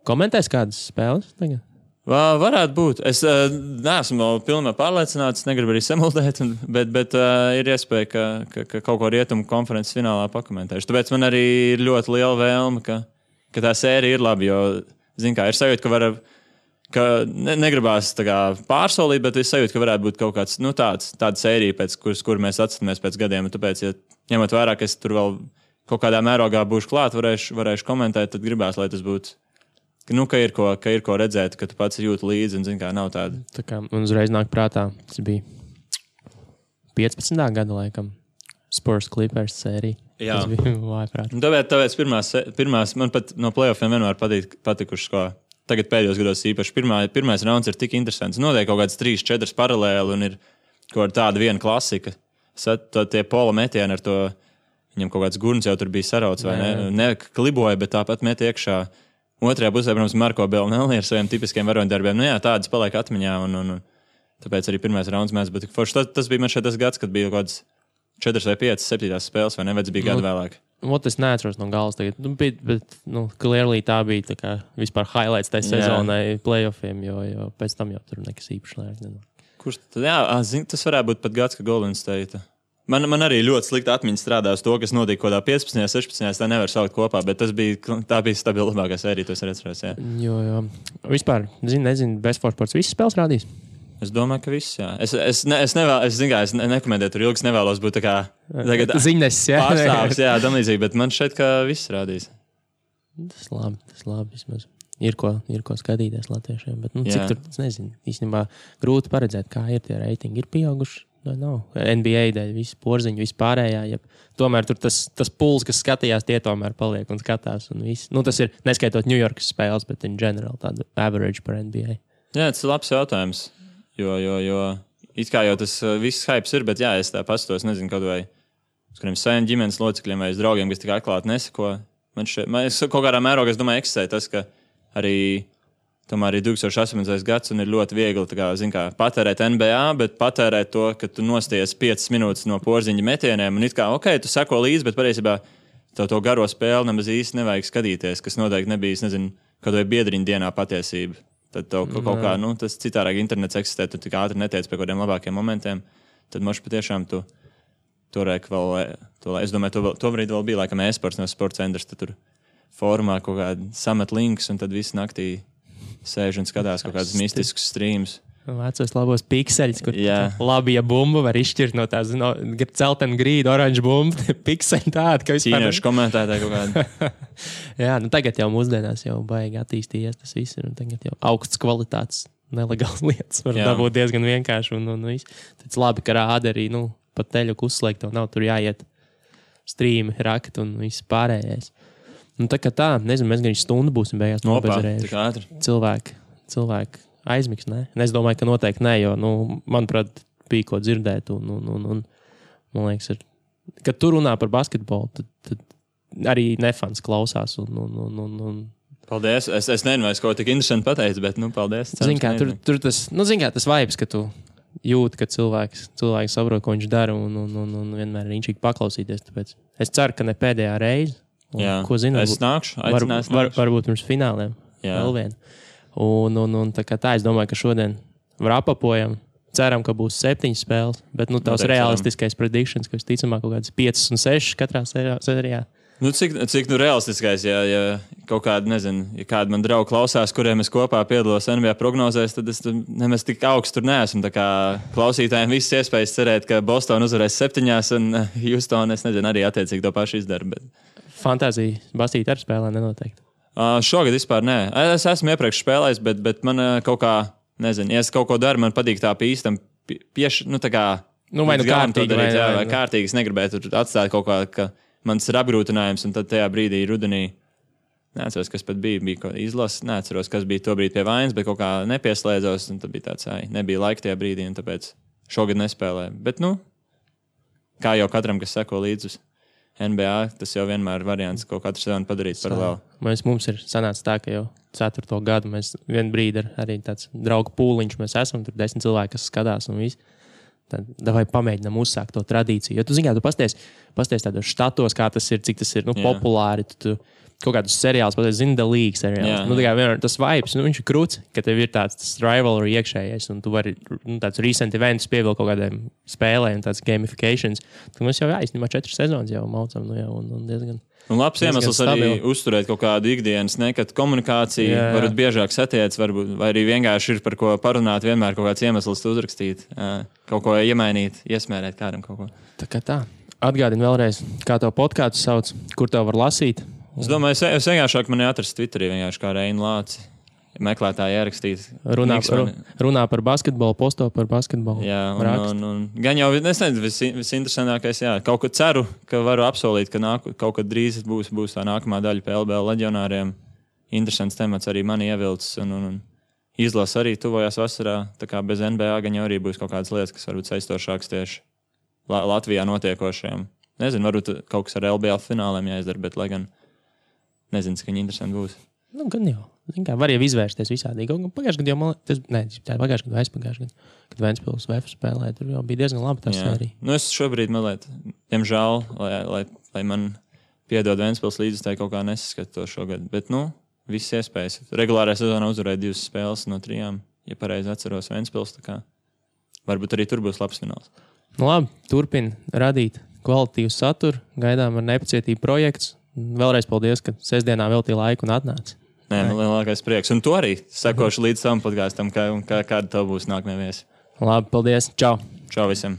Komentēs kādas spēles tagad? Varētu būt. Es neesmu pilnībā pārliecināts, negribu arī samuldēt, bet ir iespēja, ka kaut ko rietumu konferences finālā pakomentēšu. Tāpēc man arī ir ļoti liela vēlme, ka tā sērija ir laba, jo, ir sajūta, ka negribās pārsolīt, bet es sajūtu, ka varētu būt kaut kāds, tāda sērija, pēc kur mēs atskatāmies pēc gadiem. Un tāpēc, ja ņemot vērā, ka es tur vēl kaut kādā mērogā būšu klāt, varēšu komentēt, tad gribās, lai tas būtu. Ka ir ko redzēt, ka tu pats jūti līdzi un nav tāda. Tā kā man uzreiz nāk prātā, tas bija 15. gada laikam Spurs Clippers sērija. Jā. Tas bija vājprāt. Tāpēc pirmās man pat no playoffiem vienmēr patikušas, ko tagad pēdējos gados īpaši. Pirmais rauns ir tik interesants. Notiek kaut kāds 3-4 paralēli un ir kaut tāda viena klasika. Tie pola metieni ar to, viņam kaut kāds gurns jau tur bija sarauts vai ne kliboja, bet tāpat met iekšā. Otrajā pusē, protams, Marko Belnelli ar saviem tipiskiem varoņdarbiem. Tādas paliek atmiņā, un tāpēc arī pirmais rauns mēs, bet tas bija man šeit tas gads, kad bija kaut kāds 4 vai 5, 7 spēles, vai ne, vai tas bija gadu vēlāk. Es neatceros no galas tagad, bet clearly tā bija tā kā vispār highlights tai sezonai playoffiem, jo pēc tam jau tur nekas īpaši lēk. Kurš tad, tas varētu būt pat gads, ka Golden State. Man arī ļoti slikta atmiņa strādā uz to, kas notika kaut kādā 15, 16, tā nevar saukt kopā, bet tā bija stabilākā sērija, to es atceros. Jo. Vispār, nezinu, Best for Sports visas spēles rādīs? Es domāju, ka viss, jā. Es nekomentēju tur ilgi, es nevēlos būt tā kā ziņnes, pārstāvs, tam līdzīgi, bet man šeit, ka viss rādīs. Tas labi, vismaz. Ir ko skatīties latviešiem, bet cik tur, es nezinu, īstenībā grūti paredzēt, kā ir tie reitingi, ir pieauguši. NBA dēļ, visi porziņi, visi pārējā. Tomēr tur tas puls, kas skatījās, tie tomēr paliek un skatās. Un tas ir, neskaitot New Yorkas spēles, bet in general tādu average par NBA. Jā, tas ir labs jautājums. Jo it kā jau tas viss hypes ir, bet es tā pastos, nezinu, kaut vai uz kādiem saviem ģimenes locekļiem vai uz draugiem, kas tik atklāti nesako. Man kaut kādā mērogā, es domāju, eksistē tas, ka arī tomēr arī 2018. gads un ir ļoti viegli patērēt NBA, bet patērēt to, ka tu nosties 5 minūtes no porziņa metieniem un it kā, tu seko līdzi, bet patiesībā to garo spēli nemaz īsti nevajag skatīties, kas noteikti nebija, nezinu, kaut vai biedriņa dienā patiesība. Tad kaut kā, tas citārāk internets eksistē, tu tik ātri netiec pie kaut kādiem labākiem momentiem, tad moši patiešām tu turēk vēl, es domāju, to brīdi vēl bija laikam e-sports no sports centrs, tad tur formā kaut kādi samet links un tad visu naktī sēž un skatās kaut kādus mistiskus streamus. Vecos labos pikseļus, kur labi, ja bumbu var izšķirt no tās celtena grīda, oranža bumba, pikseļi tādi, ka vispār... Ķīniešu komentētāji kaut kādi. Jā, tagad jau mūsdienās jau baigi attīstījies tas viss ir, un tagad jau augsts kvalitātes nelegāls lietas var dabūt diezgan vienkārši, un viss. Tāds labi, ka rāda arī, pat teļuku uzslēgt, tev nav tur jāiet strīmi, rakt un viss pārējais. Tā kā tā, nezinu, mēs gan stundu būsim beigās nobezerējuši. Cilvēki aizmigs, ne? Es domāju, ka noteikti ne, jo, manuprāt, bija ko dzirdēt un man liekas, kad tu runā par basketbolu, tad arī nefans klausās un Paldies. Es nezinu, vai es kaut tik interesanti pateicu, bet, paldies. Zin kā, tur tas vibes, ka tu jūti, ka cilvēks saprot, ko viņš dara un vienmēr ir inčīgi paklausīties. Tāpēc es ceru, ka ne pēdējā reize. Jā, ko zinu, es nākšu, varbūt pirms fināliem. Vēl vienu. Un tā kā tā, es domāju, ka šodien apapojam. Ceram, ka būs 7 spēles, bet tavs realistiskais predictions, ka visticamāk kaut kādas 5 un 6 katrā sērijā. Cik realistiskais, ja kaut kāda, nezinu, ja kāda man draugi klausās, kuriem es kopā piedalos NBA prognozēs, tad es nemaz tik augstu tur neesmu. Tā kā klausītājiem visas iespējas cerēt, ka Boston uzvarēs 7 un Houston, es nezinu, arī attiecīgi to pašu izdara. Bet... Fantāzija basīt ar spēlē nenoteikti. Šogad vispār nē. Es esmu iepriekš spēlējis, bet man kaut kā, nezinu, ja es kaut ko daru, man patīk tā pīstam tā kā... vai kārtīgi. Vai kārtīgi. Es negribētu tur atstāt kaut kā, ka mans ir apgrūtinājums, un tad tajā brīdī rudenī, neatceros, kas pat bija izlases, neatceros, kas bija to brīdi pie vainas, bet kaut kā nepieslēdzos, un tad bija tāds, nebija laika tajā brīdī, un tāpēc šogad nespēlēju. Bet, kā jau katram, kas seko līdzi uz NBA, tas jau vienmēr ir variants, ko katru sezonu padarīt paralēli. Mums ir sanācis tā, ka jau 4. gadu mēs vienu brīdi arī tāds draugu pūliņš mēs esam, tur 10 cilvēki, kas skatās un viss. Tad vai pamēģinām uzsākt to tradīciju. Jo tu zini, tu pasties tādos štatos, kā tas ir, cik tas ir populāri. Tu kaut kādus seriālus pasties, zini, The League seriālus. Tas vibes, viņš ir krūts, ka tev ir tāds rivalry iekšējais, un tu vari tāds recent events pievilkt kaut kādiem spēlēm, tāds gamifications. Tad mums jau jāizņemā 4 sezonas jau maucam, un diezgan... Un labs iemesls arī uzturēt kaut kādu ikdienas, kad komunikācija varbūt biežāk satiec, vai arī vienkārši ir par ko parunāt, vienmēr kaut kāds iemesls uzrakstīt, kaut ko iemainīt, iesmērēt kādam kaut ko. Tā kā tā. Atgādini vēlreiz, kā tev podkāstu sauc, kur tev var lasīt. Es domāju, es vienkārši mani atrast Twitterī, vienkārši kā Reinu Lāci. Meklētāji ierakstīt. Runā par basketbolu, posto par basketbolu. Jā, un gan jau, es nezinu, visinteresantākais, kaut ko ceru, ka varu apsolīt, ka kaut kad drīz būs tā nākamā daļa pie LBL leģionāriem. Interesants temats arī mani ievilcis, un izlasa arī tuvojās vasarā, tā kā bez NBA gan jau arī būs kaut kādas lietas, kas varbūt saistošākas tieši Latvijā notiekošajiem. Nezinu, varbūt kaut kas ar LBL fināliem jāizdara, bet lai gan nezinu, cik viņi interesanti būs. Gan jau. Var jau izvērsties visādīgi. Pagājušajā gadā jau aizpagājušajā gadā, kad Ventspils VF spēlēja, tur jau bija diezgan labi tā sērija. Es šobrīd mazliet, diemžēl, lai man piedod Ventspils līdzi, tā kaut kā nesaskatu to šogad. Bet, viss iespējas. Regulārajā sezonā uzvarēja 2 spēles no 3, ja pareizi atceros Ventspils, tā kā varbūt arī tur būs labs fināls. Labi, turpin radīt kvalitīvu saturu, gaidām ar nepacietību projekts. Vēlreiz paldies, ka sestdienā veltīja laiku un atnāci. Nē, man lielākais prieks. Un to arī sekošu līdz savam podkāstam, kāda tev būs nākamie viesi. Labi, paldies. Čau. Čau visiem.